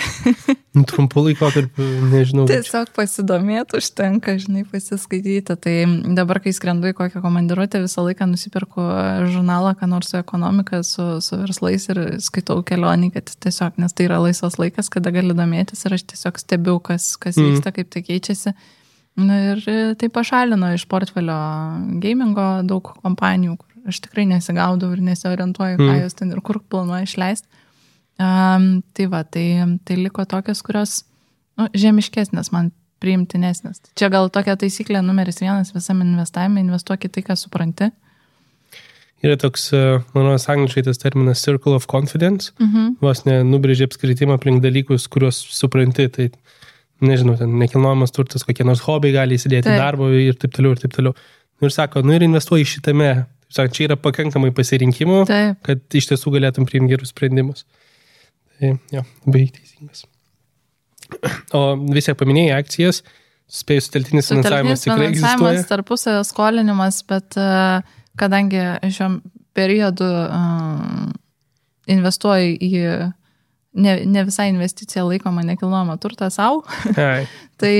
Trumpų laikotarpių, nežinau. Tiesiog pasidomėti užtenka, žinai, pasiskaityti. Tai dabar, kai skrendu į kokią komandiruotę, visą laiką nusipirku žurnalą, ką nors su ekonomika, su verslais ir skaitau kelionį, kad tiesiog, nes tai yra laisvas laikas, kada gali domėtis ir aš tiesiog stebiu, kas vyksta, kaip tai keičiasi. Ir tai pašalino iš portfelio gamingo daug kompanijų, kur aš tikrai nesigaudau ir nesiorientuoju, ką jos ten ir kur planuoju išleisti. Tai liko tokios, kurios žemiškesnės, man priimtinesnės. Čia gal tokia taisyklė numeris 1 visam investavime, investuok į tai, ką supranti. Yra toks, manau, angliškai tas terminas circle of confidence, vos nubrėžė apskritimą aplink dalykus, kuriuos supranti, tai nežinau, ten nekilnojamas turtas, kokie nors hobiai gali įsidėti darbo ir taip toliau, ir taip toliau. Ir sako, ir investuoji šitame. Sako, čia yra pakankamai pasirinkimų, kad iš tiesų galėtum priimti gerus sprendimus. Tai, labai teisingas. O vis tiek paminėjai akcijas, spėjus sutelktinis finansavimas tikrai egzistuoja. Tarpusavio skolinimas, bet kadangi šiuo periodu investuoju į ne visai investicija laikoma nekilnojamą turtą savo, tai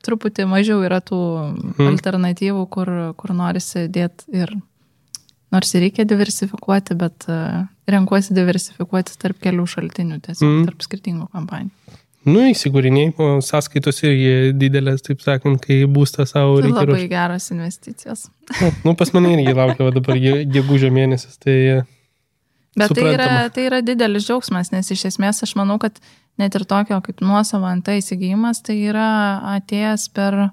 truputį mažiau yra tų alternatyvų, kur norisi dėti ir nors ir reikia diversifikuoti, bet renkuosi diversifikuoti tarp kelių šaltinių, tiesiog tarp skirtingų kompanijų. Įsigūriniai, o sąskaitos irgi didelės, taip sakant, kai būstą savo reikia. Tai labai geros investicijos. Pas mane irgi laukia dabar gegužio mėnesis, tai bet tai yra didelis džiaugsmas, nes iš esmės aš manau, kad net ir tokio kaip nuosavo ant įsigijimas, tai yra atėjęs per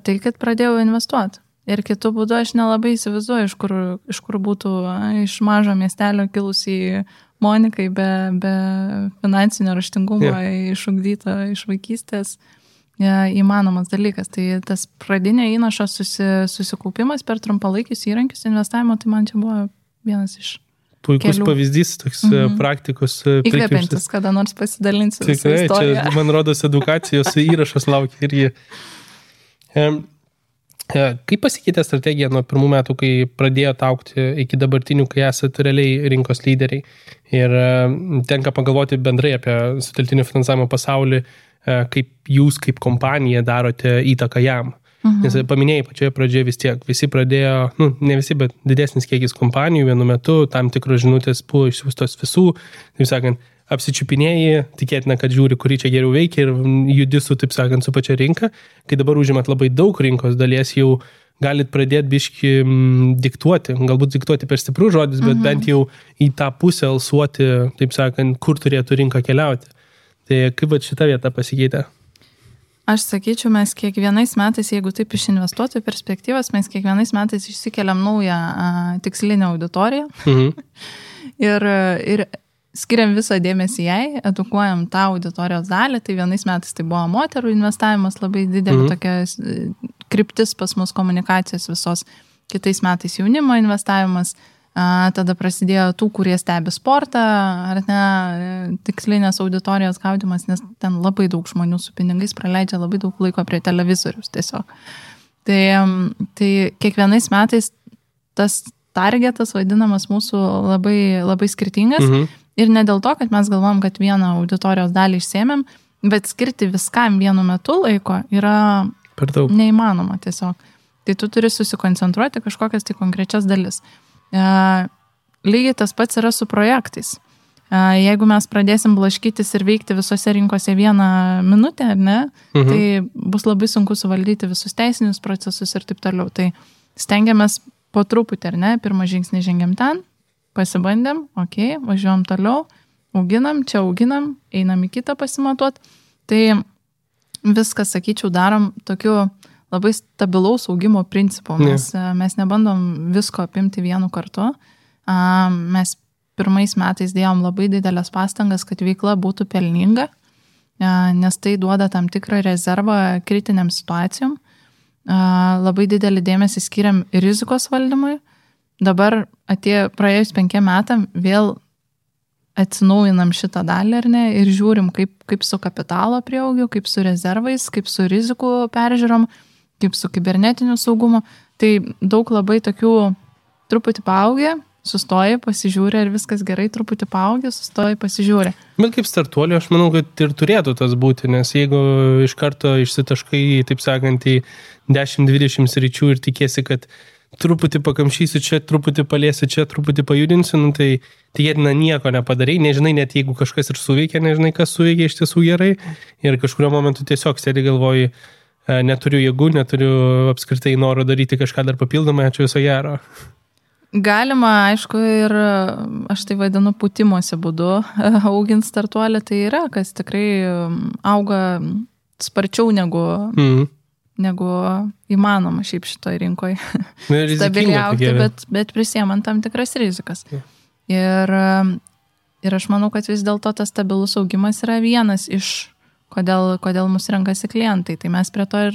tai, kad pradėjau investuoti. Ir kitų būdų aš nelabai įsivaizduoju, iš kur būtų iš mažo miestelio kilusi Monikai be finansinio raštingumo išugdyta iš vaikystės įmanomas dalykas. Tai tas pradinio įnašo susikaupimas per trumpalaikius įrankius investavimo, tai man čia buvo vienas iš puikus pavyzdys, toks praktikos įkvepiantis, kada nors pasidalinsiu visą istoriją. Tikrai, čia, man rodos, edukacijos įrašas laukia irgi. Kaip pasikeitė strategija nuo pirmų metų, kai pradėjote augti iki dabartinių, kai esate realiai rinkos lyderiai? Ir tenka pagalvoti bendrai apie sutelktinio finansavimo pasaulį, kaip jūs kaip kompanija darote įtaką jam. Nes paminėjai pačioje pradžioje vis tiek, visi pradėjo, ne visi, bet didesnis kiekis kompanijų vienu metu, tam tikros žinutės buvo išsiųstos visų, taip sakant, apsičiupinėjai, tikėtina, kad žiūri, kurį čia geriau veikia ir judi su, taip sakant, su pačia rinka. Kai dabar užimat labai daug rinkos dalies, jau galit pradėti biški diktuoti, galbūt diktuoti per stiprus žodis, bet bent jau į tą pusę alsuoti, taip sakant, kur turėtų rinka keliauti. Tai kaip šita vieta pasikeitė? Aš sakyčiau, mes kiekvienais metais, jeigu taip iš investuotojų perspektyvos, mes kiekvienais metais išsikeliam naują tikslinę auditoriją ir skiriam visą dėmesį jai, edukuojam tą auditorijos dalį, tai vienais metais tai buvo moterų investavimas, labai didelė tokia kryptis pas mus komunikacijos visos, kitais metais jaunimo investavimas, tada prasidėjo tų, kurie stebi sportą, ar ne, tikslinės auditorijos gaudimas, nes ten labai daug žmonių su pinigais praleidžia labai daug laiko prie televizorius tiesiog. Tai kiekvienais metais tas targetas vadinamas mūsų labai, labai skirtingas Ir ne dėl to, kad mes galvom, kad vieną auditorijos dalį išsėmėm, bet skirti viskam vienu metu laiko yra neįmanoma tiesiog. Tai tu turi susikoncentruoti kažkokias tai konkrečias dalis. Lygiai tas pats yra su projektais. Jeigu mes pradėsim blaškytis ir veikti visose rinkose 1 minutę, ar ne, tai bus labai sunku suvaldyti visus teisinius procesus ir taip toliau. Tai stengiamės po truputį, ar ne, pirmą žingsnį žengiam ten, pasibandėm, važiuojam toliau, auginam, einam į kitą pasimatuot. Tai viską, sakyčiau, darom tokiu labai stabilaus augimo principu. Mes nebandom visko apimti vienu kartu. Mes pirmais metais dėjom labai didelės pastangas, kad veikla būtų pelninga, nes tai duoda tam tikrą rezervą kritiniam situacijom. Labai didelį dėmesį skiriam rizikos valdymui. Dabar praėjus 5 metam vėl atsinaujinam šitą dalį, ar ne, ir žiūrim, kaip su kapitalo prieaugiu, kaip su rezervais, kaip su rizikų peržiūrom, kaip su kibernetiniu saugumu. Tai daug labai tokių truputį paaugę, sustoji, pasižiūri, ar viskas gerai, truputį paaugė, sustoji, pasižiūri. Bet kaip startuolio, aš manau, kad ir turėtų tas būti, nes jeigu iš karto išsitaškai, taip sakant, į 10-20 sričių ir tikėsi, kad truputį pakamšysiu čia, truputį paliesiu čia, truputį pajudinsiu, tai tikėtina nieko nepadarai, nežinai, net jeigu kažkas ir suveikia, nežinai, kas suveikia iš tiesų gerai ir kažkurio momentu tiesiog sėdi galvoji, neturiu jėgų, neturiu apskritai noro daryti kažką dar papildomai, ačiū viso gero. Galima, aišku, ir aš tai vadinu pūtimosi būdu augint startuolį, tai yra, kas tikrai auga sparčiau negu įmanoma šiaip šitoj rinkoje stabiliai augti, bet prisiemant tam tikras rizikas. Ir aš manau, kad vis dėlto tas stabilus augimas yra vienas iš, kodėl mus renkasi klientai, tai mes prie to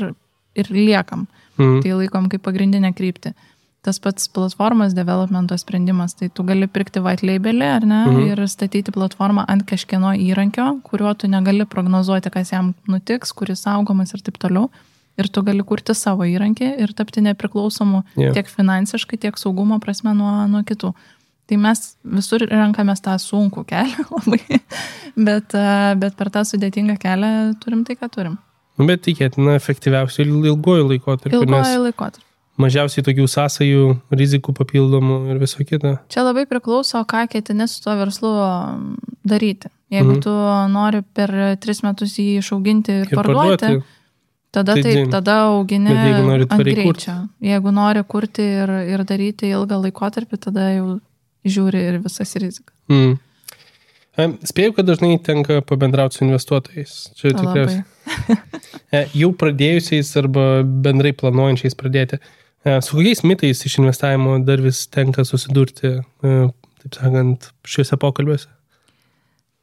ir liekam, tai laikom kaip pagrindinę kryptį. Tas pats platformos developmento sprendimas, tai tu gali pirkti white labelį, ar ne, ir statyti platformą ant kažkieno įrankio, kuriuo tu negali prognozuoti, kas jam nutiks, kuris saugomas ir taip toliau. Ir tu gali kurti savo įrankį ir tapti nepriklausomu tiek finansiškai, tiek saugumo prasme nuo kitų. Tai mes visur renkamės tą sunkų kelią labai, bet per tą sudėtingą kelią turim tai, ką turim. Bet tikėtina efektyviausiai ilguoju laikotarpiu. Mažiausiai tokių sąsajų, rizikų papildomų ir viso kita. Čia labai priklauso, ką ketini su tuo verslu daryti. Jeigu tu nori per 3 metus jį išauginti ir parduoti, tada augini ant greičio. Jeigu nori kurti ir daryti ilgą laikotarpį, tada jau žiūri ir visas rizikas. Spėjau, kad dažnai tenka pabendrauti su investuotojais. Čia tikriausiai. Jau pradėjusiais arba bendrai planuojančiais pradėti. Su kokiais mitais iš investavimo dar vis tenka susidurti, taip sakant, šiuose pokalbiuose?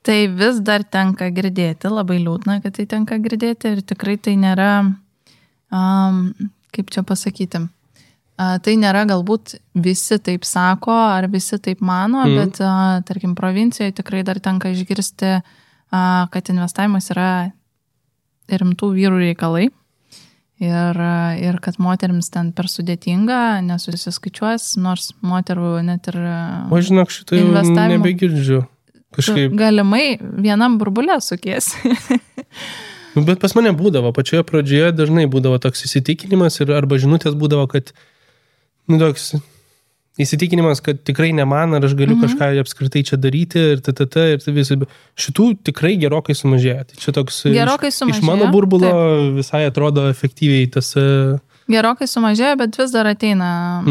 Tai vis dar tenka girdėti, labai liūdna, kad tai tenka girdėti ir tikrai tai nėra, kaip čia pasakyti, tai nėra galbūt visi taip sako ar visi taip mano, bet tarkim provincijoje tikrai dar tenka išgirsti, kad investavimas yra rimtų vyrų reikalai. Ir kad moterims ten per sudėtinga, nesusiskaičiuos, nors moterų net ir o žinok, šitą jau nebegirdžiu. Kažkaip galimai vienam burbulė sukiesi. Bet pas mane būdavo, pačioje pradžioje dažnai būdavo toks įsitikinimas arba žinutės būdavo, kad toks įsitikinimas, kad tikrai ne man, ar aš galiu kažką apskritai čia daryti ir ir visai. Šitų tikrai gerokai sumažėjo. Tai čia toks iš mano burbulo visai atrodo efektyviai tas. Gerokai sumažėjo, bet vis dar ateina.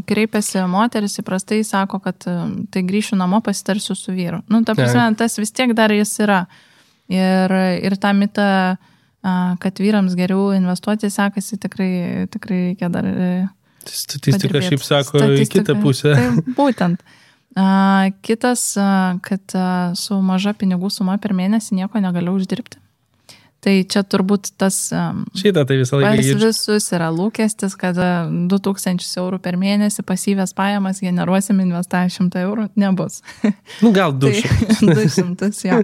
Kreipiasi moteris, įprastai sako, kad tai grįšiu namo, pasitarsiu su vyru. Ta prasme, tas vis tiek dar jis yra. Ir tą mitą, kad vyrams geriau investuoti sekasi, tikrai reikia dar. Statistika šiaip sako į kitą pusę. Tai būtent. Kitas, kad su maža pinigų suma per mėnesį nieko negaliu uždirbti. Tai čia turbūt tas šitą tai visą laiką pas visus yra lūkestis, kad 2000 eurų per mėnesį pasyvės pajamas generuosim investavę 100 eurų, nebus. Gal 200. 200, jo.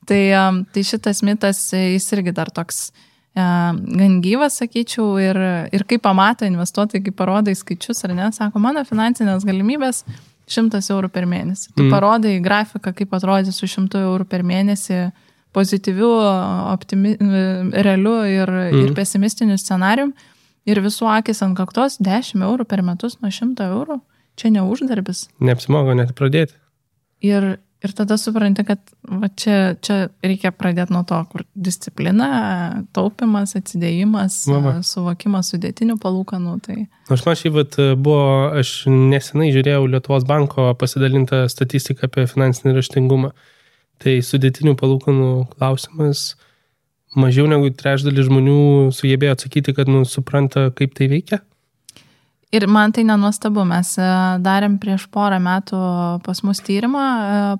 Tai šitas mitas, jis irgi dar toks gan gyvas, sakyčiau, ir kai pamato investuotojai, kai parodai skaičius ar ne, sako, mano finansinės galimybės 100 eurų per mėnesį. Tu parodai grafiką, kaip atrodys su 100 eurų per mėnesį pozityviu, realiu ir pesimistiniu scenarium. Ir visų akis ant kaktos 10 eurų per metus nuo 100 eurų. Čia neuždarbis. Neapsimogo net pradėti. Ir tada supranti, kad va, čia reikia pradėti nuo to, kur disciplina, taupimas, atsidėjimas, suvokimas sudėtinių palūkanų. Tai... Aš man aš nesenai žiūrėjau Lietuvos banko pasidalintą statistiką apie finansinį raštingumą. Tai sudėtinių palūkanų klausimas mažiau negu trečdalis žmonių sugebėjo atsakyti, kad supranta, kaip tai veikia. Ir man tai nenuostabu, mes darėm prieš porą metų pas mus tyrimą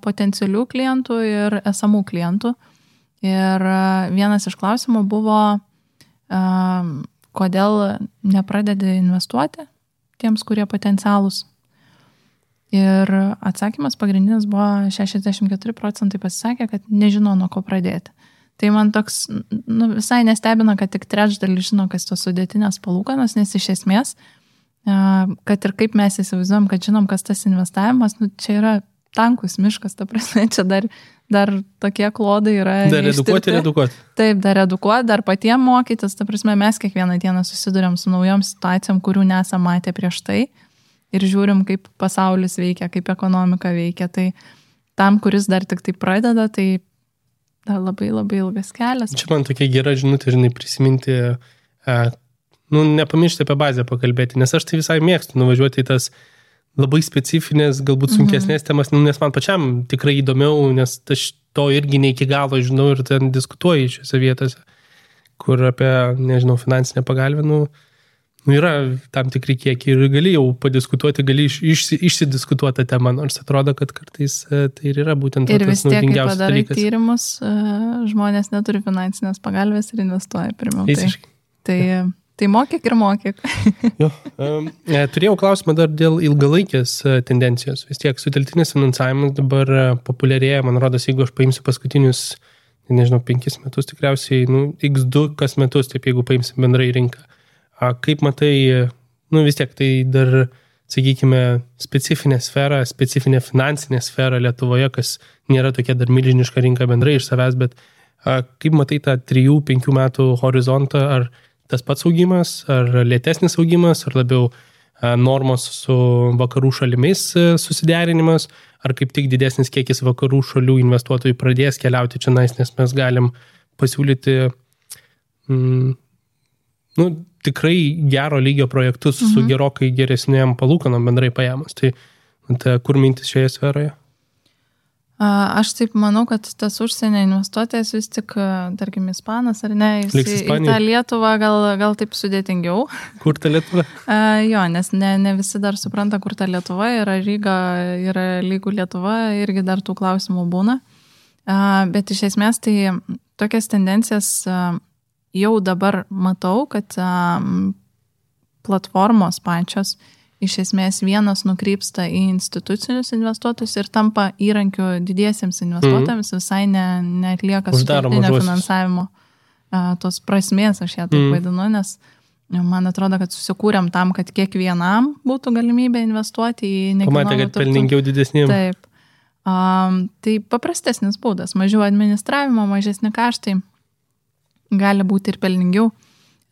potencialių klientų ir esamų klientų. Ir vienas iš klausimų buvo, kodėl nepradedi investuoti tiems, kurie potencialūs. Ir atsakymas pagrindinis buvo 64% pasisakė, kad nežino, nuo ko pradėti. Tai man toks visai nestebina, kad tik trečdalis žino, kas tos sudėtinės palūkanos, nes iš esmės kad ir kaip mes įsivaizduojam, kad žinom, kas tas investavimas, čia yra tankus miškas, ta prasme, čia dar tokie klodai yra. Dar edukuoti. Taip, dar edukuoti, dar patiem mokytis, ta prasme, mes kiekvieną dieną susiduriam su naujom situacijom, kurių nesam matę prieš tai ir žiūrim, kaip pasaulis veikia, kaip ekonomika veikia. Tai tam, kuris dar tik tai pradeda, tai dar labai labai ilgas kelias. Čia man tokia gera žinutė, prisiminti nepamiršti apie bazę pakalbėti, nes aš tai visai mėgstu nuvažiuoti į tas labai specifinės, galbūt sunkesnės temas, nes man pačiam tikrai įdomiau, nes aš to irgi ne iki galo žinau ir ten diskutuoju šiose vietose, kur apie, finansinę pagalbę, yra tam tikri kiekiai ir gali jau padiskutuoti, gali išsidiskutuoti temą, nors atrodo, kad kartais tai ir yra būtent ir tas naudingiausias dalykas. Ir vis tiek, kai padarai tyrimus, žmonės neturi finansinės pagalbės ir investuoja pirmiau. Tai mokyk ir mokyk. Turėjau klausimą dar dėl ilgalaikės tendencijos. Vis tiek sutelktinis finansavimas dabar populiarėja, man rodos, jeigu aš paimsiu paskutinius, 5 metus tikriausiai, x2 kas metus, taip jeigu paimsim bendrai rinką. Kaip matai, vis tiek tai dar, sakykime, specifinė finansinė sfera Lietuvoje, kas nėra tokia dar milžiniška rinka bendrai iš savęs, bet kaip matai tą 3-5 metų horizontą, ar tas pats augimas, ar lėtesnis augimas, ar labiau normos su vakarų šalimis susiderinimas, ar kaip tik didesnis kiekis vakarų šalių investuotojų pradės keliauti čia, nes mes galim pasiūlyti tikrai gero lygio projektus su gerokai geresnėm palūkanom bendrai paėmus. Tai kur mintis šioje sferoje? Aš taip manau, kad tas užsienio investuotojas vis tik, tarkim, ispanas ar ne, į tą Lietuvą gal taip sudėtingiau. Kur ta Lietuva? Jo, nes ne visi dar supranta, kur ta Lietuva, yra Ryga, yra lygų Lietuva, irgi dar tų klausimų būna. Bet iš esmės tai tokias tendencijas jau dabar matau, kad platformos pačios iš esmės vienas nukrypsta į institucinius investuotojus ir tampa įrankiu didiesiems investuotojams, visai neatlieka sutartinio finansavimo tos prasmės, aš ją taip vadinu, nes man atrodo, kad susikūrėm tam, kad kiekvienam būtų galimybė investuoti į nekilnojamą turtą. Pamatė, kad pelningiau didesniem. Taip. Tai paprastesnis būdas, mažiau administravimo, mažesni kaštai, gali būti ir pelningiau.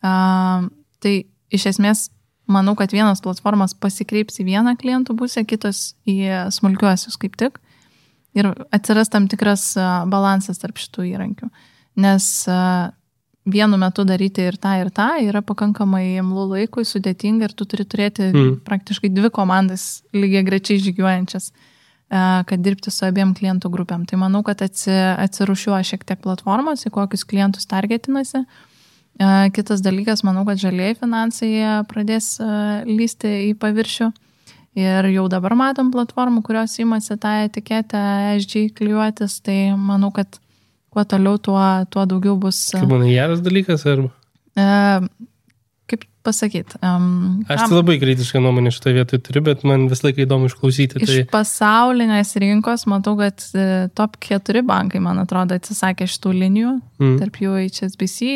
Tai iš esmės manau, kad vienos platformos pasikreips į vieną klientų pusę, kitos į smulkiuosius kaip tik. Ir atsiras tam tikras balansas tarp šitų įrankių. Nes vienu metu daryti ir tą yra pakankamai imlų laikui, sudėtinga ir tu turi turėti praktiškai 2 komandas lygiai grečiai žygiuojančias, kad dirbti su abiem klientų grupėm. Tai manau, kad atsirušiuoja šiek tiek platformos, į kokius klientus targetinasi. Kitas dalykas, manau, kad žalieji finansai pradės lysti į paviršių ir jau dabar matom platformų, kurios imasi tą etiketę ESG klijuotis, tai manau, kad kuo toliau, tuo daugiau bus. Kaip manai, geras dalykas arba? Kaip pasakyti? Aš tai labai kritišką nuomonę šitą vietą turiu, bet man vis laiką įdomu išklausyti. Iš pasaulinės rinkos matau, kad top 4 bankai, man atrodo, atsisakė šitų linijų, tarp jų HSBC,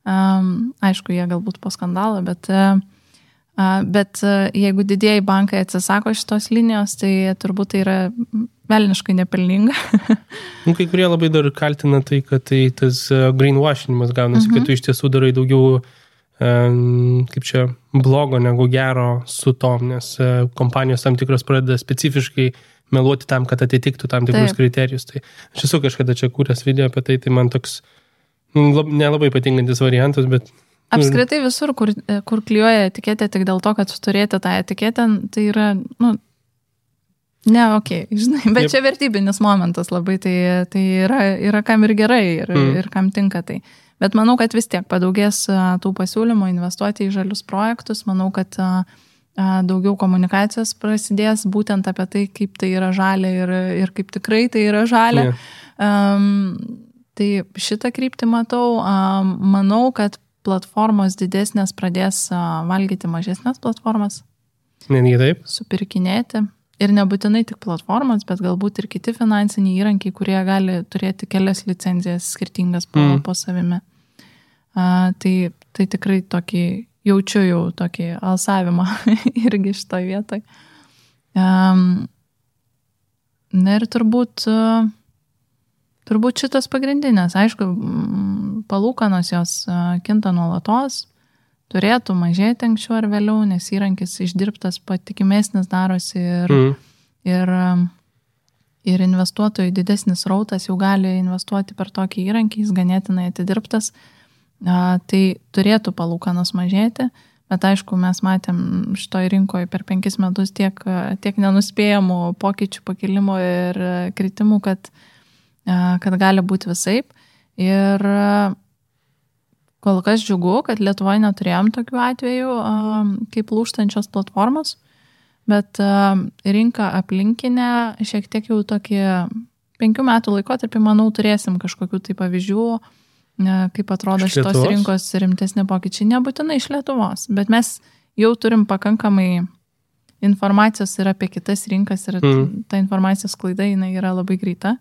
aišku, jie galbūt po skandalo, bet Bet jeigu didieji bankai atsisako šitos linijos, tai turbūt tai yra velniškai nepelninga. Kai kurie labai dar kaltina tai, kad tai tas greenwashinimas gaunasi, kad tu iš tiesų darai daugiau kaip čia blogo negu gero su tom, nes kompanijos tam tikros pradeda specifiškai meluoti tam, kad atitiktų tam tikrus kriterijus. Tai aš esu kažkada čia kūręs video apie tai, tai man toks nelabai patinkantis variantas, bet... Apskritai visur, kur klijuoja etiketę tik dėl to, kad turėti tą etiketę, tai yra, ne, žinai, bet čia vertybinis momentas labai, tai yra kam ir gerai ir kam tinka tai. Bet manau, kad vis tiek padaugės tų pasiūlymų investuoti į žalius projektus, manau, kad daugiau komunikacijos prasidės būtent apie tai, kaip tai yra žalia ir kaip tikrai tai yra žalia. Tai šitą kryptį matau, manau, kad platformos didesnės pradės valgyti mažesnės platformas. Netgi taip. Supirkinėti. Ir nebūtinai tik platformos, bet galbūt ir kiti finansiniai įrankiai, kurie gali turėti kelias licenzijas skirtingas po savimi. Tai tikrai tokį, jaučiu jau tokį alsavimą irgi šitoj vietoj. Na ir turbūt šitas pagrindinės. Aišku, palūkanos jos kinta nuolatos, turėtų mažėti anksčiau ar vėliau, nes įrankis išdirbtas patikimesnis darosi ir investuotojų didesnis rautas jau gali investuoti per tokį įrankį, jis ganėtinai atidirbtas, tai turėtų palūkanos mažėti, bet aišku, mes matėm šitoj rinkoje per 5 metus tiek nenuspėjamų pokyčių, pakilimų ir kritimų, kad gali būti visaip. Ir kol kas džiugu, kad Lietuvoje neturėjom tokių atvejų kaip lūžtančios platformos, bet rinka aplinkinė šiek tiek jau tokį 5 metų laikotarpį, manau, turėsim kažkokių tai pavyzdžių, kaip atrodo šitos rinkos rimtesni pokyčiai. Nebūtinai iš Lietuvos, bet mes jau turim pakankamai informacijos ir apie kitas rinkas ir ta informacijos sklaida jinai yra labai greita.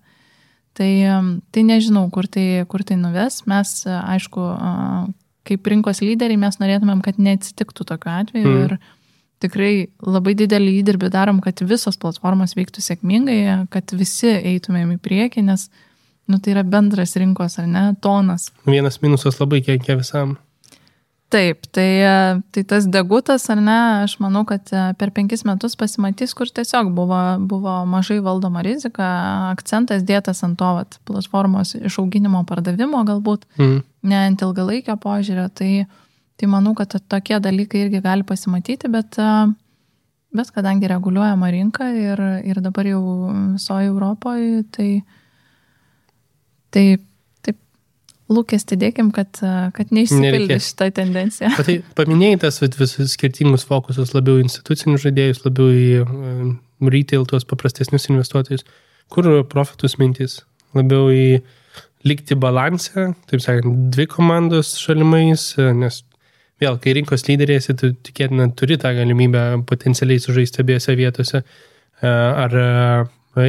Tai nežinau, kur tai nuves. Mes, aišku, kaip rinkos lyderiai, mes norėtumėm, kad neatsitiktų tokiu atveju ir tikrai labai didelį įdirbį darom, kad visos platformos veiktų sėkmingai, kad visi eitumėm į priekį, nes tai yra bendras rinkos, ar ne, tonas. Vienas minusas labai kenkia visam. Taip, tai tas degutas, ar ne, aš manau, kad per 5 metus pasimatys, kur tiesiog buvo mažai valdoma rizika, akcentas dėtas ant to platformos išauginimo pardavimo galbūt, ne ant ilgalaikio požiūrio, tai manau, kad tokie dalykai irgi gali pasimatyti, bet kadangi reguliuojama rinka ir dabar jau visoje Europoje, tai lūkestį dėkim, kad neišsipildė šitą tendenciją. Tai paminėjai tas visus skirtingus fokusus, labiau institucinius žaidėjus, labiau į retail, tuos paprastesnius investuotojus. Kur profitus mintys? Labiau į likti balansę, taip sakant, 2 komandos šalimais, nes vėl, kai rinkos lyderiesi, tu tikėtina turi tą galimybę potencialiai sužaisti abiejose vietose, ar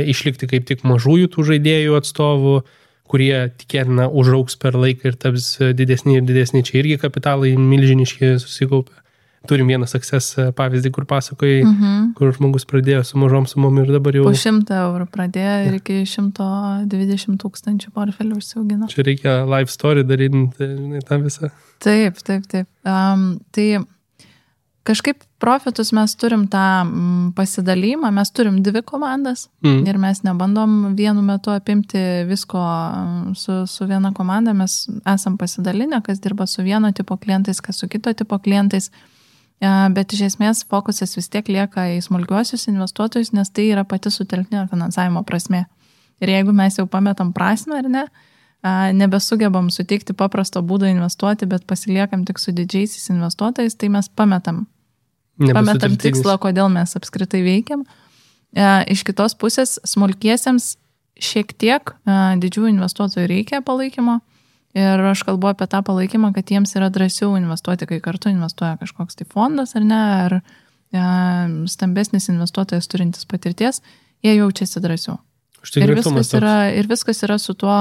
išlikti kaip tik mažųjų tų žaidėjų atstovų, kurie tikėtina užaugs per laiką ir taps didesni ir didesni. Čia irgi kapitalai milžiniški susikaupia. Turim vieną success pavyzdį, kur pasakojai, kur žmogus pradėjo su mažom sumom ir dabar jau... Po 100 eurų pradėjo ir iki 120 000 portfelių užsiaugino. Čia reikia live story daryti, tą visą. Taip. Tai kažkaip profitus mes turim tą pasidalymą, mes turim 2 komandas ir mes nebandom vienu metu apimti visko su viena komanda, mes esam pasidalinę, kas dirba su vieno tipo klientais, kas su kito tipo klientais, bet iš esmės fokusas vis tiek lieka į smulkiuosius investuotojus, nes tai yra pati sutelktinio finansavimo prasmė. Ir jeigu mes jau pametam prasmę, ar ne, nebesugebam suteikti paprasto būdo investuoti, bet pasiliekam tik su didžiaisiais investuotojais, tai mes pametam tikslą, kodėl mes apskritai veikiam. Iš kitos pusės, smulkiesiems šiek tiek didžiųjų investuotojų reikia palaikymo ir aš kalbu apie tą palaikymą, kad jiems yra drąsiau investuoti, kai kartu investuoja kažkoks tai fondas ar ne, ar stambesnis investuotojas turintis patirties, jie jaučiasi drąsiau. Ir viskas yra su tuo,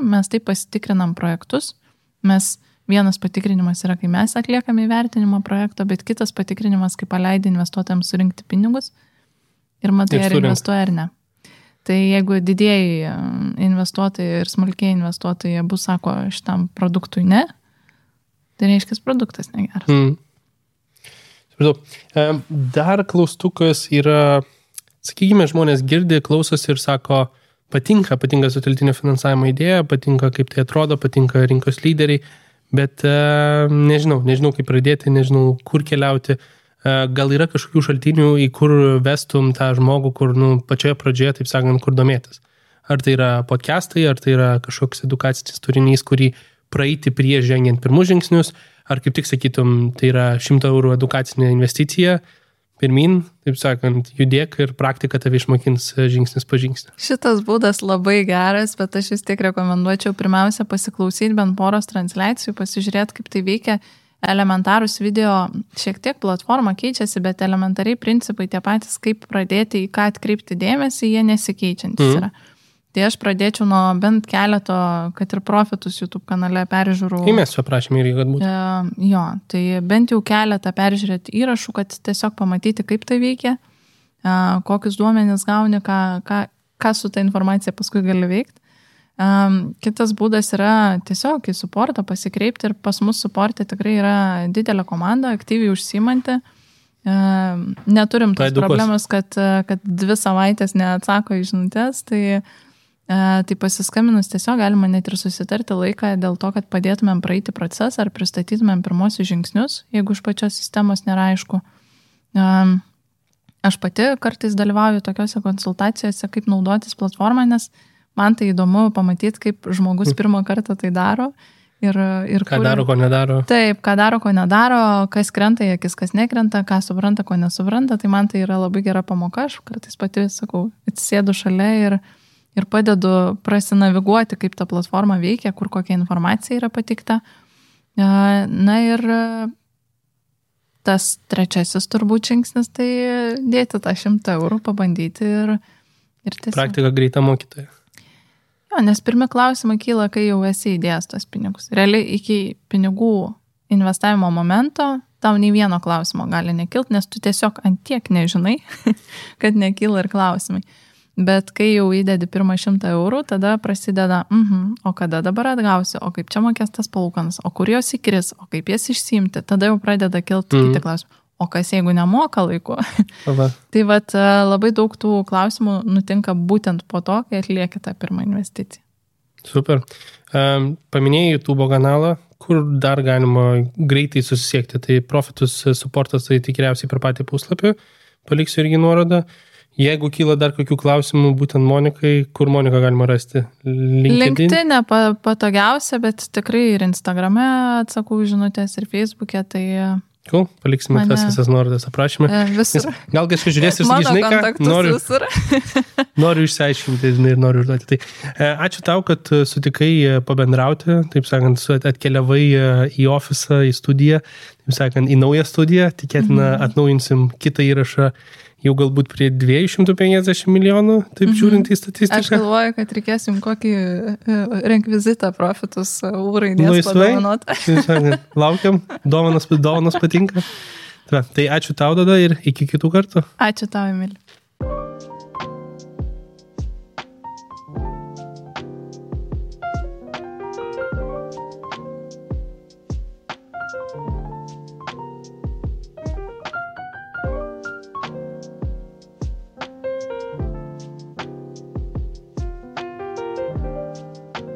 mes taip pasitikrinam projektus, mes vienas patikrinimas yra, kai mes atliekame įvertinimo projekto, bet kitas patikrinimas, kai paleidai investuotojams surinkti pinigus ir matai, ar investuoja ar ne. Tai jeigu didėjai investuotojai ir smulkiai investuotojai bus sako šitam produktui ne, tai reiškia, produktas negeras. Dar klaustukas yra, sakykime, žmonės girdi, klausosi ir sako, patinka sutelktinio finansavimo idėja, patinka kaip tai atrodo, patinka rinkos lyderiai, bet nežinau kaip pradėti, nežinau kur keliauti. Gal yra kažkokių šaltinių, į kur vestum tą žmogų, kur pačioje pradžioje, taip sakant, kur domėtis. Ar tai yra podcastai, ar tai yra kažkoks edukacinis turinys, kurį praeiti prieš žengiant pirmus žingsnius, ar kaip tik sakytum, tai yra 100 eurų edukacinė investicija, pirmin, taip sakant, judėk ir praktika tave išmokins žingsnis po žingsnį. Šitas būdas labai geras, bet aš vis tiek rekomenduočiau pirmiausia pasiklausyti bent poros transliacijų, pasižiūrėti, kaip tai veikia. Elementarūs video, šiek tiek platforma keičiasi, bet elementariai principai tie patys, kaip pradėti, į ką atkreipti dėmesį, jie nesikeičiantis yra. Tai aš pradėčiau nuo bent keleto, kad ir profitus YouTube kanale peržiūrų. Kai mes paprašėme irgi, kad būtų. Jo, tai bent jau keletą peržiūrėti įrašų, kad tiesiog pamatyti, kaip tai veikia, kokius duomenis gauni, ką su ta informacija paskui gali veikti. Kitas būdas yra tiesiog į suportą pasikreipti ir pas mus suporte tikrai yra didelė komanda, aktyviai užsiimanti. Neturim tos problemos, kad 2 savaitės neatsako į žinutes, tai pasiskambinus tiesiog galima net ir susitarti laiką dėl to, kad padėtumėm praeiti procesą ar pristatytumėm pirmosius žingsnius, jeigu iš pačios sistemos nėra aišku. Aš pati kartais dalyvauju tokiuose konsultacijose, kaip naudotis platformą, nes man tai įdomu pamatyti, kaip žmogus pirmą kartą tai daro. Ir ką daro, ko nedaro. Taip, ką daro, ko nedaro, kas krenta į akis, kas nekrenta, ką supranta, ko nesupranta, tai man tai yra labai gera pamoka, aš kartais pati, sakau, atsisėdu šalia ir padedu prasinaviguoti, kaip ta platforma veikia, kur kokia informacija yra pateikta. Na ir tas trečiasis turbūt žingsnis, tai dėti tą 100 eurų, pabandyti ir tiesiog. Praktika greita mokytoja. Jo, nes pirmi klausimai kyla, kai jau esi įdėjęs tos pinigus. Realiai iki pinigų investavimo momento tau nei vieno klausimo gali nekilti, nes tu tiesiog ant tiek nežinai, kad nekyla ir klausimai. Bet kai jau įdedi pirmą 100 eurų, tada prasideda, o kada dabar atgausi, o kaip čia mokės tas palūkanas, o kur jos įkris, o kaip jas išsiimti, tada jau pradeda kilti kiti klausimai. O kas jeigu nemoka laiku? Tai labai daug tų klausimų nutinka būtent po to, kai atlieki tą pirmą investiciją. Super. Paminėjai YouTube kanalą, kur dar galima greitai susisiekti. Tai Profitus supportas, tai tikriausiai per patį puslapį. Paliksiu irgi nuorodą. Jeigu kyla dar kokių klausimų būtent Monikai, kur Moniką galima rasti? LinkedIn patogiausia, bet tikrai ir Instagrame atsakau žinutės ir Facebook'e, tai... Cool, paliksime tas visas nuorodas aprašymę. Visur. Gal kažkas žiūrės ir sakys, žinai ką, noriu išsiaiškinti ir noriu užduoti. Tai ačiū tau, kad sutikai pabendrauti, taip sakant, atkeliavai į ofisą, į studiją, taip sakant, į naują studiją, tikėtina atnaujinsim kitą įrašą jau galbūt prie 250 milijonų, taip žiūrint į statistiką. Aš galvoju, kad reikėsim kokį rekvizitą Profitus ūraidės padovanoti. Laukiam, dovanos patinka. Tai ačiū tau tada ir iki kitų kartų. Ačiū tau, Emili.